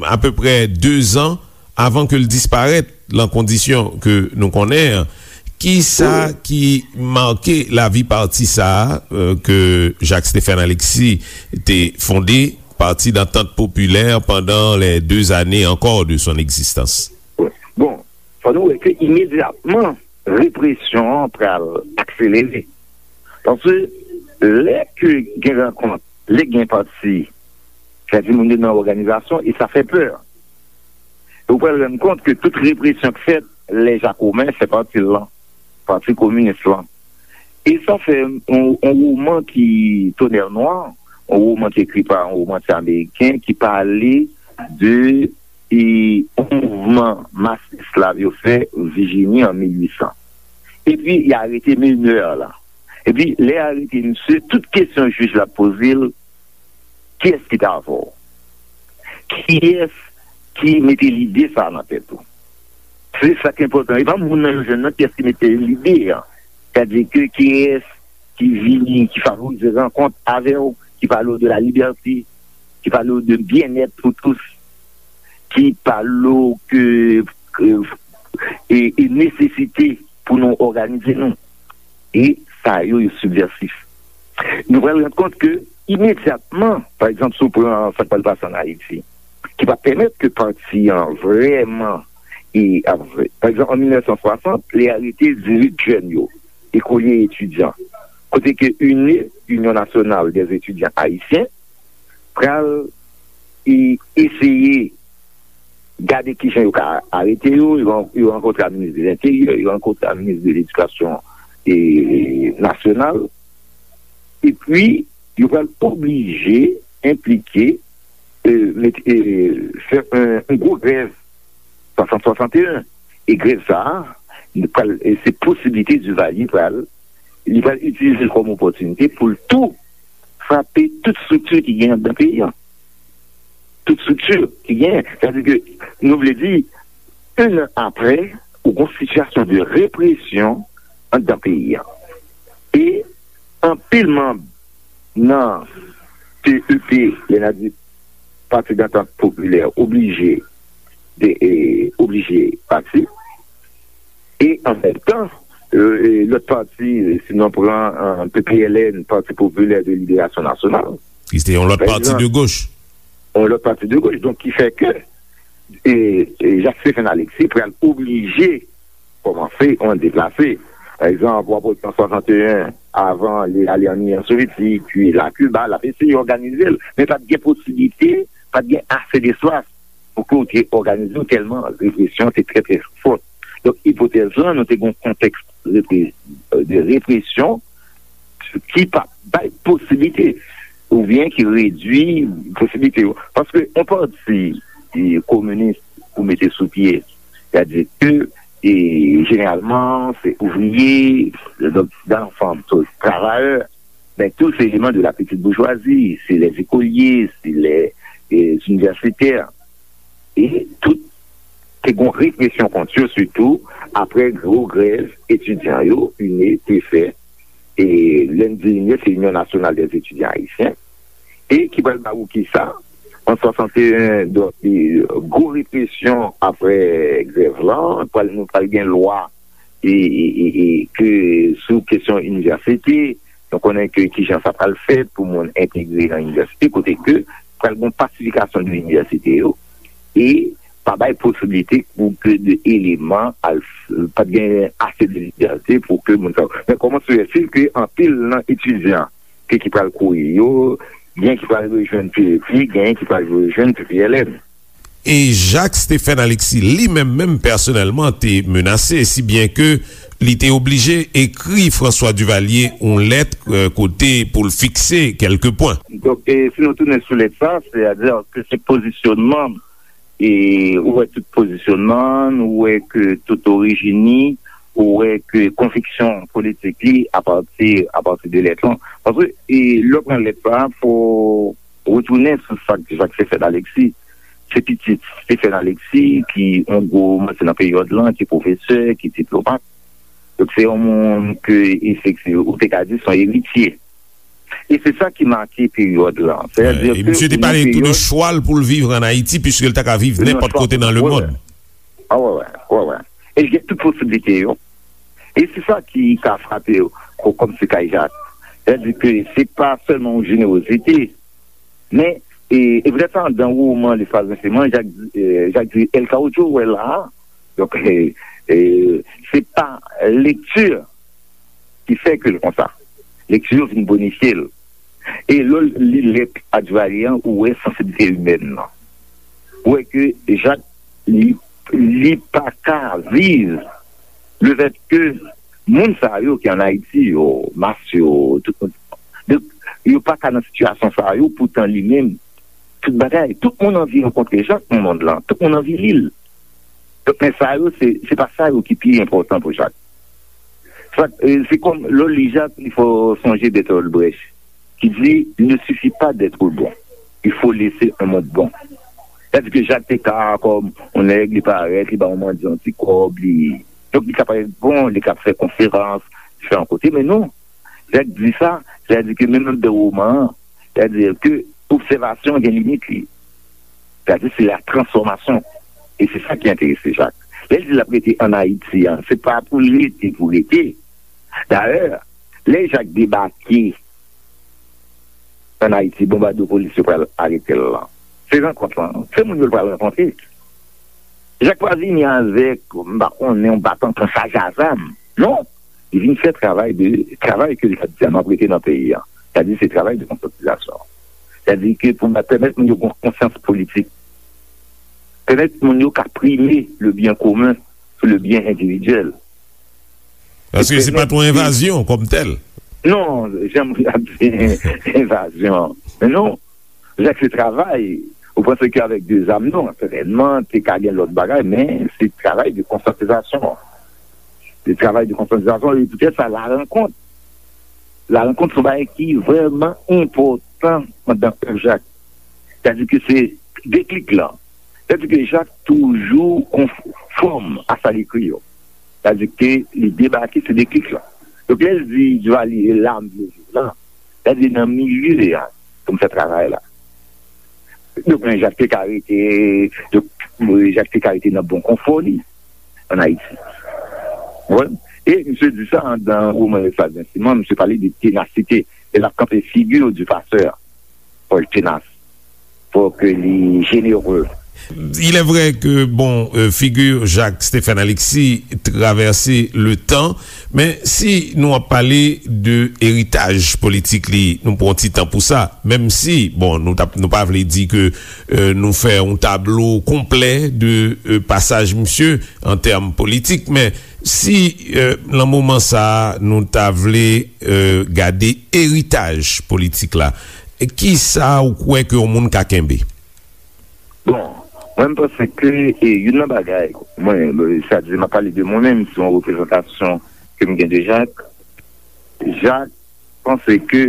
apeprè de zan avan ke l disparèt lan kondisyon ke nou konnen an. Kisa ki make lavi pati sa a, euh, ke Jacques Stephen Alexis te fonde, Parti d'Entente Populaire, pendant les deux années encore de son existence? Bon, fò nou wè ke imedyatman, represyon an pral akselere. Paske lè ke gen rankont, lè gen pati, sa di moun yo nan òganizasyon, e sa fè pè. E ou pral rann kont ke tout represyon k fèt, lè Jakomen fè pati l lan, Pati Kominis lan. E sa fè yon, yon woman ki Tonnerre Noire, yon woman ki ekri pa yon womantye ameriken ki pale de e yon mouvman mas esklav yo fè Vijini an mil uit san. Epi, y arete menè la. Epi, lè y arete misye, tout kesyon jij la poze l, kiyès ki t avè w? Kiyès ki mete lide sa a nan tèt ou? Se sa k enpòtan. E pa moun nan yo jwenn nan, kiyès ki mete lide an. Sètadi ke kiyès ki vini, ki favorize rankont avè w, ki pale w de la liberté, ki pale w de bien-être pour tous, ki pale w ke, ke, e, e nesesite pou nou òganize nou. E sa yo, yo sibvèsif. Nou pral rann kont ke imedyatman, pa egzanp, si w pran sa k pral pase ann Ayiti, ki pa pèmèt ke pati an vrèman, e, ap, pa egzanp, an mil nèf san swasant, lè y arete dizuit jèn yo, ekolye etidyan, kote ke UNE, Union Nationale des Étudiants Haïtiens, pral e eseye gade kijan yo ka arete yo, yo, yo rankontre ak minis de Lenteryè, yo rankontre ak minis de Ledikasyon e, nasyonal, epi yo pral oblije enplike, e, mete, e, fè yon, yon gwo grèv swasant swasanteyen. E grèv sa a, pral, e se posiblite Duvalier pral Li pral itilize l kòm opòtinite pou l tou frape tout estrikti ki gen anndan peyi a. Tout estrikti ki gen. Sètadi ke nou vle di, en an apre, ou gen yon sitiyasyon de represyon anndan peyi a. E anpil manm nan T E P, lè n a di Pati Dantant Popilè, oblije de, e, oblije pati. E an menm tan, e, e, lòt pati, si nou pran, e, P P L N, Pati Popilè de Liberasyon Nasyonal, ki se te yon lòt pati de goch. Yon lòt pati de goch, donk ki fè ke, e, e, Jacques Stephen Alexis pral oblije kòmanse yon deplase. Pa egzanp, w ap wè an swasannteyen, avan li ale an Inyon Sovyetik, pi l a Kiba, l ap eseye òganize l, men pa t gen posiblite, pa t gen ase despas pou ke w te òganize w, tèlman represyon te trè, trè fòt. Donk, ipotèz lan, nou te gen yon kontèks repre-, de represyon ki pa bay posiblite, oubyen ki redui posiblite yo. Paske yon pati, e, kominis pou mete sou pye, sètadi ke, e, jeneralman, se ouvriye, donk, dan fanm, travayè, men tou se eleman de la petite bourgeoisie, se les écoliers, se les, e, universitaires. E tout te gen represyon kont yo, sitou apre gwo grèv etidyan yo, UNE, te fè. E lè n di UNE, se Union Nationale des Étudiants Haïtiens. E ki pral ba ou kisa? An swasannteyen, donk, e, gwo represyon apre grèv lan, pral, nou pral gen lwa e, e, e, e ke sou kesyon inivèsite, nou konnen ke kijan sa pral fèt pou moun entegre nan inivèsite, kote ke pral gen pasifikasyon de inivèsite yo, e pa bay posiblite pou ke de eleman al, pa t gen ase de libète pou ke moun sa yo. Men kòman se fè ke anpil nan etidyan ke ki pral kouri yo, gen ki pral rejwenn P E P, gen ki pral rejwenn P P L N. E Jacques Stephen Alexis, li menm menm pèsonèlman, te menase, si byen ke li te oblije ekri François Duvalier yon lèt, e, kote pou l fikse kèlke pwen. Donk, e, si nou tounen sou lèt sa, sètadi ke se pozisyonman, e, ou wè tout pozisyonman, ou wè ke tout orijin li, ou wè ke konviksyon politik li apati, apati de lèt lan. Paske, e, lè w pran lèt sa, fò retounen sou sa k Jacques Stephen Alexis. Se pitit Stephen Alexis ki yon gwo manti nan peryòd lan, ki pwofesè, ki diplomat. Donk, se yon moun ke, efektivman, ou te ka di se yon eritye. E se sa ki make peryòd lan. Sètadi ke misye te pale tou de chwa l pou l viv ann Ayiti, piske l ta ka viv nenpòt kote nan lemonn. A, wè, wè, wè, wè. E l gen tout posiblite yo. E se sa ki ka frape yo, ko-, kòm se kay Jak. Sètadi ke se pa sèlman yon jenerozite, men, e, e poutèt sa, anndan woman Lespaz Renseman, Jak, e, Jak di, El Caudillo, ou wè la a, donk, e, e, se pa lekti ki fè ke l konsa. Lekti yo vin bonifye l. E lè w li lèt a Duvalier an, ou wè sansiblite imèn nan. Ou wè ke Jak, li, li pa ka viv lefètke moun sa yo ki ann Ayiti yo, mas yo, tout moun, donk, yo pa ka nan sitiyasyon sa yo, poutan li menm, tout bagay, tout moun anvi rankontre Jak nan mond lan, tout moun anvi li l. Donk, men sa yo, se, se pa sa yo ki pi enpòtan pou Jak. Sa, e, se kòm, lè w li Jak, il faut songer Bertolt Brecht, ki di, il ne suffit pas d'être bon, il faut laisser un monde bon. Sètadi ke Jak te ka, kòm yon nèg, li parèt, li ba yon mandyan yon ti kòb, li, donk, li ka parèt bon, li ka fè konferans, diferan kote, men non. Jak di sa, sètadi ke menm anndan woman an, sètadi ke obsèvasyon gen limit li. Sètadi se la transfòmasyon. E se sa ki enterese Jak. Lè l di l ap rete ann Ayiti an, se pa pou l rete, pou rete. Dayè, lè Jak debake ann Ayiti, bonbadopolis yo pral arete l lan. Se rankont lan, se moun yo l pral rankontre. Jak pa vini avèk, m pa konnen, yon batan pran chaj a zam. Non. Li vin fè travay de, travay ke li t ap di a, m ap rete nan peyi a. Sètadi se travay de konsyantizasyon. Sètadi ke pou pèmèt moun yo gen konsyans politik. Pèmèt moun yo ka prime le bien commun sou le bien individuel. Paske se pa t yon envazyon kòm tèl. Non, jan m ap di envazyon. Men non, Jak se travay. Ou panse ke avèk de zam, non, sètènman, te ka gen lòt bagay, men se travay de konsyantizasyon. De travay de konsyantizasyon, e poutèt sa, la rankont Larankontre se yon bagay ki vrèman enpòtan anndan èv Jak. Sètadi ke se deklik lan. Sètadi ke Jak toujou konfòm a sa l ekri yo. Sètadi ke li debake, se deklik lan. Donk, lè l di Duvalier, e la m vle viv la, sètadi nan milye a pou m fè travay la. Donk, men Jak te ka rete, donk, Jak te ka rete nan bon konfò li ann Ayiti. Ou konprann? E misye di sa anndan woman Lesla Zensiman, misye pale de tenasite. E l ap kanpe figi du passeur. Fò l tenas. Fò ke li jenere. Il est vrai que, bon, euh, figure Jacques Stéphane Alexis traverse le temps, men si nou ap pale de eritaj politik li, nou pran ti tan pou sa, menm si, bon, nou t ap, nou pa vle di ke, euh, nou fè yon tablo konplè de, euh, pasaj misye an tèm politik, men si, euh, nan moman sa a, nou ta vle, euh, gade eritaj politik la, kisa ou kwè ke yon moun ka kenbe? Bon, mwen, m panse ke, e, youn nan bagay, mwen, sètadi, m ap pale de mwen menm, se yon reprezantasyon ke m gen de Jak. Jak panse ke,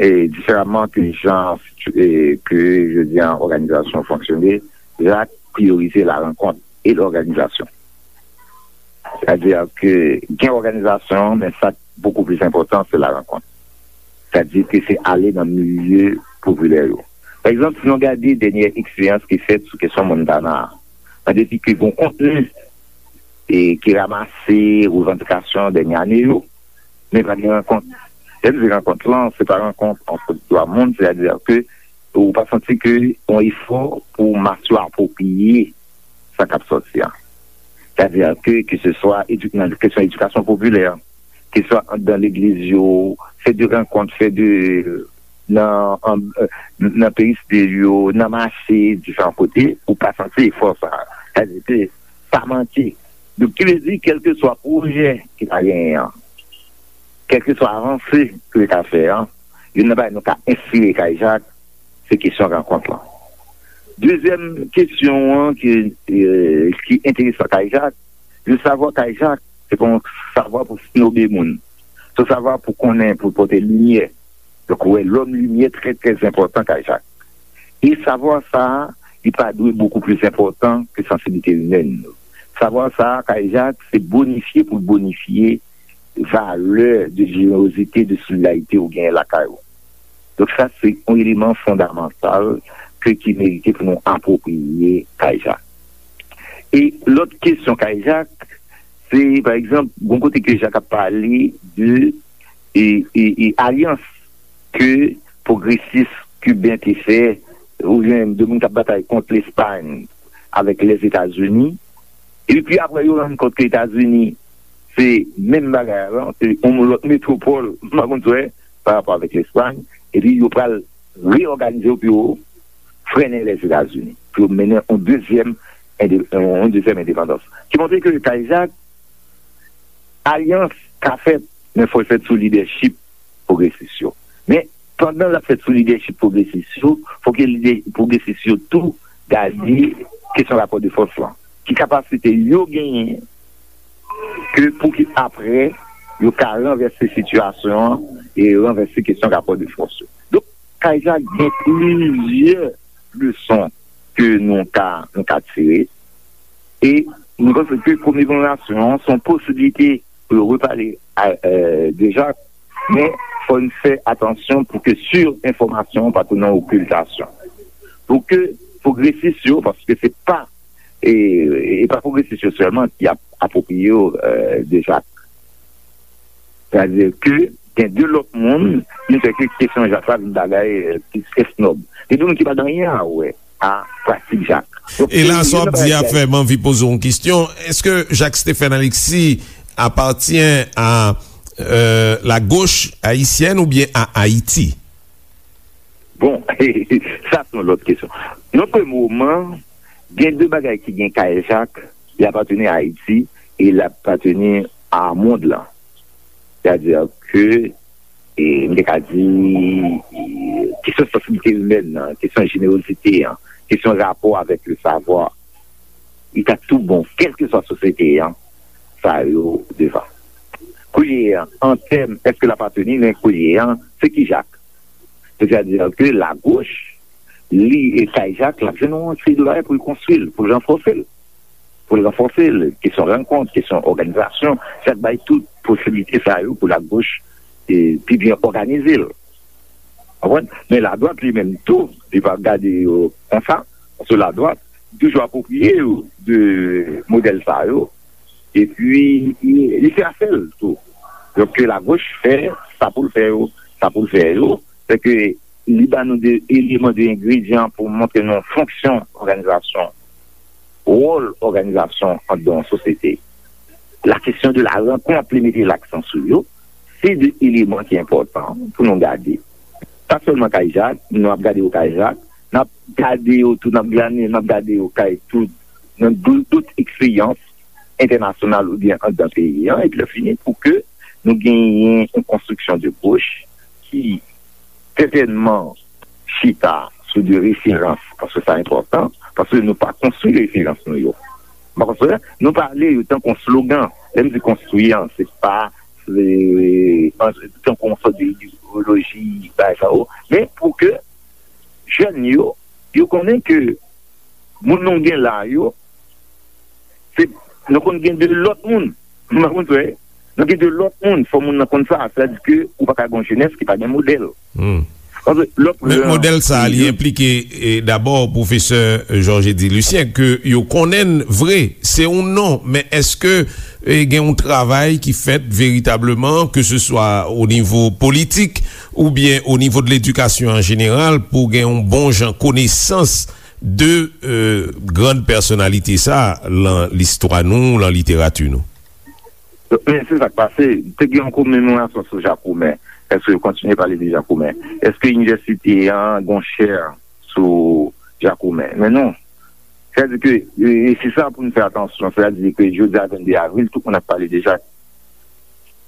e, diferaman ke jan, e, ke, je di, an òganizasyon fonksyone, Jak priyorize la rankont e lòganizasyon. Sètadi ke gen òganizasyon, men sa k bokou plis enpòtan, se la rankont. Sètadi ke se ale nan milye popilè yo. Pa egzanp, si nou gade dènyè eksperyans ki fèt sou kesyon Montana a, nan depi ke gon kontni e ki ranmase revandikasyon dènyè ane yo, men pa gen rankont. Lè m di rankont lan, se pa rankont ant dwa moun, sètadi ke ou pa santi ke yon efò pou mas yo apwopriye sa k ap sòti a. Sètadi ke, ke se swa edu-, nan kesyon edikasyon popilè, ke swa anndan legliz yo, fè de rankont, fè de, nan, an, nan peristil yo, nan mache, diferan kote, ou pa santi efò sa. Sètadi ke sa manke. Donk, ki vle di, kèlkeswa pwojè ki ta genyen an, kèlkeswa avanse ki yo ta fè an, youn nan bagay nou ka enspire Kay Jak, se kesyon rankont lan. Dezyèm kesyon an ki, e, ki enteresan Kay Jak, le savoir Kay Jak, se pa yon savwa pou snobe moun. Se yon savwa pou konnen, pou pote limyè. Donk, ou wè, lòm limyè trè, trè enpòtan Kay Jak. E savwa sa a, li pa dwe bokou plis enpòtan ke sansiblite imèn. Savwa sa a, Kay Jak, se bonifye pou l bonifye valè de jenerozite, de solidarite ou genyen lakay ou. Donk, sa, se yon eleman fondamantal ke, ki merite pou nou apwopriye Kay Jak. E lòt kesyon Kay Jak, se, pa egzanp, gon kote ke Jak ap pale de, e, e, e alyans ke pwogresis kiben te fè, oubyen de moun k ap batay kont Lespay avèk Lèzetazini. Epi apre, yo rann kont ke Etazini se menm bagay la, se yon lòt metwopòl, m pa konn sa w wè, pa rapò avèk Lespay. Epi yo pral reyòganize yo pou yo frennen Lèzetazini, pou yo mennen yon dezyèm ende-, yon dezyèm endepandans. Ki montre ke Kay Jak, alyans ka fèt, men fò l fèt sou lidèchip pwogresis yo. Men, pandan l ap fèt sou lidèchip pwogresis yo, fò ke lidè pwogresis yo tou gade kesyon rapò de fòs lan. Ki kapasite yo genyen ke pou ke apre yo ka ranvèse sitiyasyon an e ranvèse kesyon rapò de fòs yo. Donk, Kay Jak gen plizyè leson ke nou ka, nou ka tire. E nou panse ke komemoration an se yon posiblite pou yo repale a, euh, de Jacques, men fò n fè atansyon pou ke sirenfòmasyon pa tounen okiltasyon. Pou ke pwogresis yo, paske se pa, e, e pa pwogresis yo sèlman ki ap apwopriye yo, euh, de Jacques. Sètadi ke gen de lòt moun, ki fè ke kesyon Jacques la vin bagay, euh, plis esnòb. Gen de moun ki pa gen anyen a wè a pratik Jacques. Donk, e la, sa w ap di a fè m anvi poze w yon kesyon. Èske Jacques Stephen Alexis appartient à, euh, la gauche haïtienne ou bien à Haïti? Bon, sa se yon lòt kesyon. Nan premye moman, gen de bagay ki gen kay Jacques, li apateni a Ayiti e li apateni a mond lan. Sètadi ke, e, m te ka di, e, kesyon sansiblite imèn nan, kesyon jenerozite an, kesyon rapò avèk le savoir, li ta tou bon, kèlkeswa sosyete an, sa yo devan. Koulye a, an tèm, èske l aparteni, men koulye a, se ki Jak? Sètadi ke lagoch, li, e kay Jak, l ap jwenn yon seri de bagay pou l konstwi l, pou l ranfòse l. Pou l ranfòse l, kesyon rankont, kesyon òganizasyon, Jak bay tout posiblite sa yo pou lagoch, e, pi byen òganize l. Konprann? Men ladwat li menm tou, li pa gade yo konsa, paske ladwat toujou apwopriye yo de modèl sa yo. Epi, li fè afè l tou. Donk, ke lagoch fè sa pou l fè yo, sa pou l fè yo, se ke li ba nou de eleman, de engredyan pou montre nou fonksyon òganizasyon, wòl òganizasyon anndan yon sosyete. La kesyon de la rankont, li mete laksan sou yo, se de eleman ki enpòtan pou nou gade. Pa sèlman kay Jak, nou ap gade yo kay Jak, n ap gade yo tou, n ap glane, n ap gade yo kay tout, nan dou-, dout eksperyans entènasyonal oubyen anndan peyi an, epi lè fini, pou ke nou genyen yon konstriksyon de goch ki sètènman chita sou de referans, paske sa enpòtan, paske nou pa konstwi referans nou yo. Nou pa konstwi, nou pale yo tankou yon slogan. Lè m di konstwi an, se pa, se, an, tankou yon sòt de idewoloji, bagay sa yo. Men pou ke jèn yo, yo konnen ke moun nou gen la yo, se, nou konn gen de lòt moun. Ou konprann, frè? Nou gen de lòt moun. Fò moun nan konn sa. Sètadi ke ou pa ka gen yon jenès ki pa gen modèl. Hmm. Paske lòt Men, lè, modèl sa a, li yo enplike, e, dabò, pwofesè Georges Eddy Lucien, ke yo konnen vre, se yon non, men èske, e, gen yon travay ki fèt veritableman, ke se swa o nivo politik oubyen o nivo de ledikasyon an jeneral, pou gen yon bon jan konesans de, e, grann pèsonalite sa a lan listwa nou, lan literati nou? Men se sa k pase. Te gen yon komemorasyon sou Jakoumen. Èske yo kontinye pale de Jakoumen? Èske inivèsite an gen yon chè sou Jakoumen? Men non. Sètadi ke, e, e se sa pou nou fè atansyon. Sètadi ke jodi a, vennde avril, tout moun ap pale de Jak.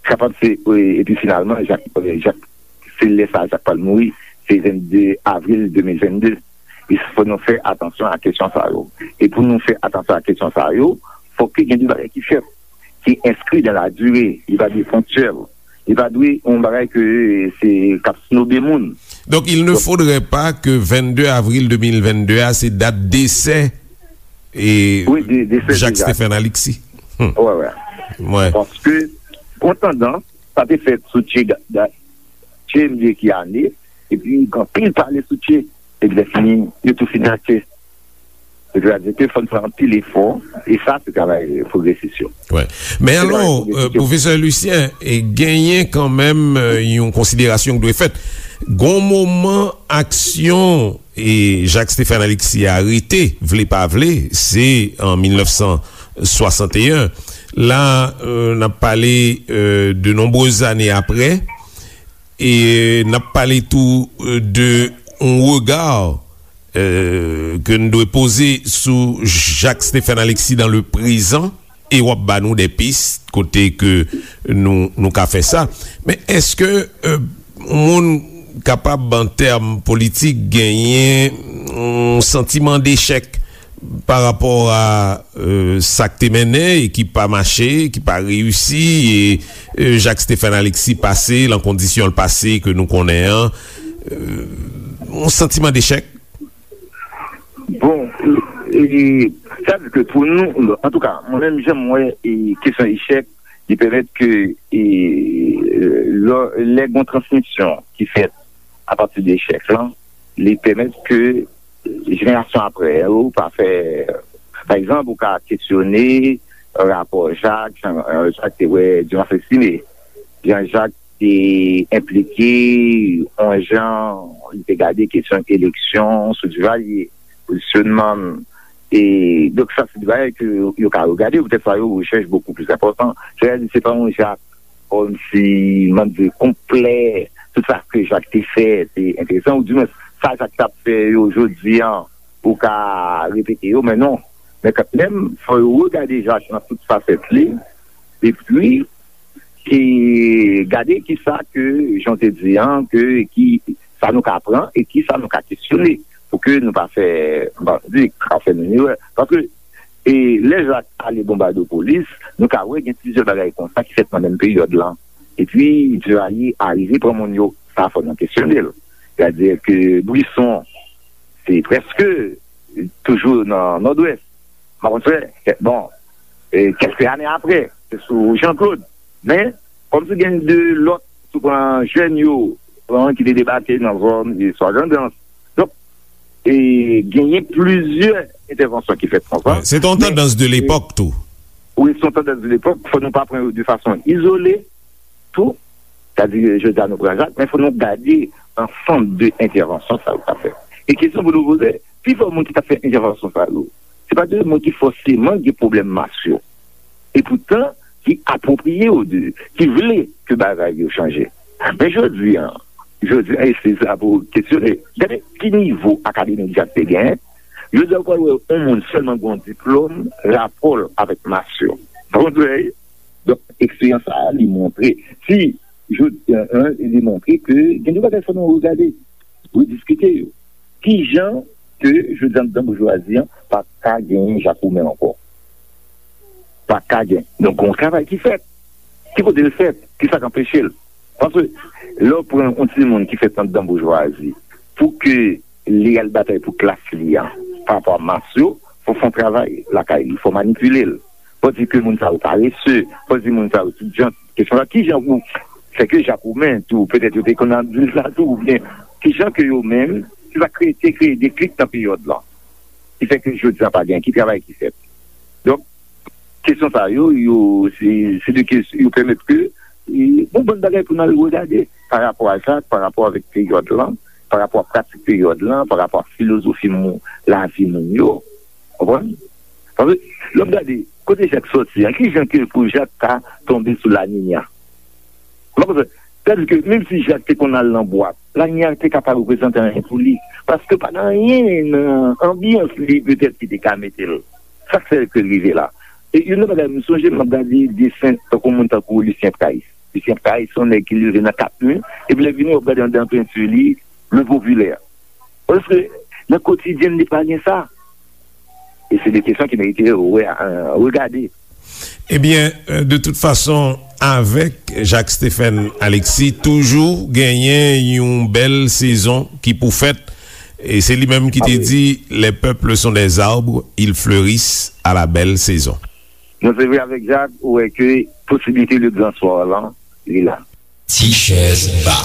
Kapab se, e, epi finalman, Jak, e, Jak, se lè sa a Jak pral mouri, se vennde avril de mil vennde. E fò nou fè atansyon a kesyon sa yo. E pou nou fè atansyon a kesyon sa yo, fò ke gen de bagay ki fèt, ki enskri dan la dire, li pa dwe ponktyèl, li pa dwe yon bagay ke se k ap snobe moun. Donc, il ne faudrait pas que vennde avril de mil vennde a, se dat desè e Wi, de, de Jacques Stéphane Alexis. Hmm. Wè, wè. Wè. Paske, an atandan, sa te fèt sou Che Ga-, Da-, Che m bliye ki ane, epi gen anpil pale sou Che, epi lè fini, yo tou fini ak Che. Sètadi ke fò n fè anpil efò, e sa se travay pwogresis yo. Wè. Men alò, pwogresis yo. Pwofesè Lucien, e genyen kanmenm, e, yon konsiderasyon ki dwe fèt. Gon moman aksyon e Jacques Stéphane Alexis a rete, vle pa vle, se an mil nèf san swasanteyen. La, e, n ap pale, e, de nonbrez ane apre, e n ap pale tou, e, de yon rega, e, ke n dwe poze sou Jacques Stéphane Alexis dans le présent, e w ap ba nou de pis kote ke nou, nou ka fè sa. Men èske, e, yon moun kapab, an tèm politik, genyen yon santiman dechèk pa rapò a, e, sa k te mennen e ki pa mache, ki pa reyisi, e, e, Jacques Stéphane Alexis pase lan kondisyon l pase ke nou konnen an, e, yon santiman dechèk? Bon, e, e, sa di ke pou nou, antouka, mwen menm, jan m wè, e, kesyon echèk, li pèmèt ke, e, lè, lè gen yon transmisyon ki fèt apati de echèk lan, li pèmèt ke jenerasyon apre yo pa fè, pa egzanp, ou ka kesyone rapò Jak, jan, e, Jak te wè Dumas Estimé. Jan Jak te enplike, yon jan li te gade kesyon eleksyon sou Duvalier, pozisyonman l. E, donk, sa se de bagay ke yo, yo ka regade, poutèt sa yo rechèch bokou plis enpòtan. Sètadi, se pa yon Jak kòmsi, m ap di, konplè, tout sa ke Jak te fè, te enteresan, oudimwens, sa Jak t ap fè yo jodi an, ou ka repete yo, men non. Men kanmenm, fò yo regade Jak nan tout fasèt li, epi, e gade kisa ke, jan w te di an, ke, ki, sa nou ka pran e kisa nou ka kesyone, pou ke nou pa fè, m pa di, ka fè menm erè. Paske, E lè Jak ale Bonbadopolis, nou ka wè gen plizyè bagay konsa ki fèt nan menm peryòd lan. Epi, Duvalier arive pran moun yo, sa fò nou kesyone l. Sètadi ke Brisson, se prèske toujou nan Nòdwès. Makonfè, bon, e kèlke ane apre, se sou Jean Claude. Men, kòmsi gen de lòt, si w pran jèn yo, pran ki te debake nan zòn, e swa Grandans. Donk, e genyen plizyè entèvansyon ki fèt konsa. Wi, se te yon tandans de lepòk tou. Wi, se yon tandans de lepòk. Fò nou pa pran yo de fason izole, tou. Sètadi, jodi a, nou pran Jak, men fò nou gade ansanm de entèvansyon sa yo k ap fèt. E kesyon pou nou poze, pifò moun ki t ap fè entèvansyon sa yo, se pa de moun ki fòseman gen pwoblèm mas yo. E poutan, ki apwopriye yo de, ki vle ke bagay yo chanje. Men jodi a, jodi a, e se sa pou kesyone. Gade ki nivo akademik Jak te genyen. Jodi a, ou pral wè yon moun sèlman gen yon diplòm, rapò l avèk mas yo. Donk, eksperyans sa a, li montre, si jodi a, li montre ke gen de bagay fò nou regade, rediskite yo. Ki jan ke jodi a anndan boujwazi an pa ka genyen Jakoumen ankò? Pa ka gen. Donk, gen yon travay ki fèt. Ki kote l fèt? Kisa k anpeche l? Paske lè w pran yon timoun ki fèt anndan boujwazi, pou ke li al batay pou klas li a, pa rapò a mas yo, fò w fè yon travay lakay li, fò w manipile l. Fò w di ke moun sa yo parese, fò w di moun sa yo tout jan. Kesyon la, ki jan pou fè ke Jakoumen tou, petèt yo te konn ap di l sa tou, oubyen ki jan ke yo menm, ki sa kreye, te kreye deklik nan peryòd lan, ki fè ke jodi a pa gen, ki travay ki fèt? Donk, kesyon sa yo, yo, se, se de kesyon, yo pèmèt ke, e, bon, bann bagay pou n al regade pa rapò a sa, pa rapò avèk peryòd lan, pa rapò a pratik peryòd lan, pa rapò a filozofi moun, lavi moun yo. Konprann? Paske, lè w gade, kote Jak sòti an, ki jan ke pou Jak ta tonbe sou La Niña? Ou pa konprann? Sètadi ke menm si Jak te konn al nan bwat, La Niña te ka pa reprezante anyen pou li. Paske pa gen anyen nan anbyans li petèt ki te ka mete l. Sa k fè ke l rive la. E youn nan bagay, m sonje m ap gade desen tankou moun tankou Lucien Price. Lucien Price, se yon nèg ki leve nan kat mi, epi lè vini, w ap gade anndan penti li, le popilè. Paske nan kotidyen li pa gen sa. E se de kesyon ki merite re-, euh, regade. Ebyen, euh, de tout fason, avèk Jacques Stephen Alexis, toujou genyen yon bèl sezon ki pou fèt. E se li menm ki te di, les peuples sont des arbres, ils fleurissent à la belle saison. Non, se vre, avèk Jak, ou wè ke posibilite le grand soir lan, li la. Ti chèz ba.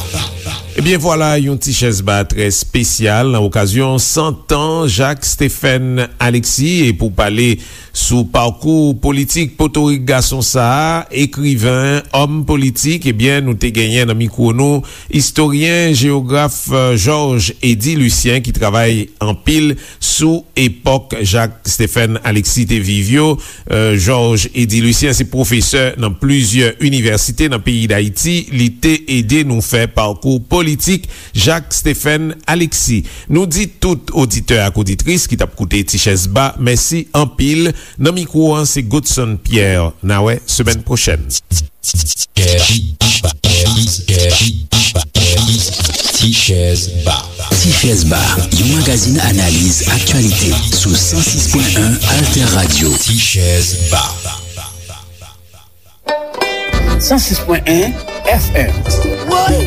Ebyen vwala, yon ti chèz ba trè espesyal nan okazyon san tan Jacques Stephen Alexis. E pou pale sou pakou politik potorik gason sa a, ekriven, òm politik, ebyen nou te genyen nan mikwo nou istoryen, jewograf, euh, Georges Eddy Lucien ki travay anpil sou epòk Jacques Stephen Alexis te viv yo. Euh, Georges Eddy Lucien se pwofesè nan plizyè inivèsite nan peyi Dayiti. Li te ede nou fè pakou politik Jacques Stephen Alexis. Nou di tout oditè ak oditris ki t ap koute Ti Chèz Ba, mèsi anpil. Nan mikwo an, se Godson Pierre. N a wè semèn pwochèn. Ti Chèz Ba. Ti Chèz Ba, yon magazin analiz aktyalite sou san sis pwen en Alter Radio. Ti Chèz Ba. San sis pwen en F M. Woy!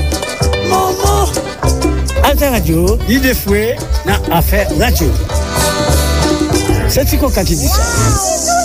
Manman! Alter Radio, lide fwe nan afè radyo. Se Ti Koka ki di sa.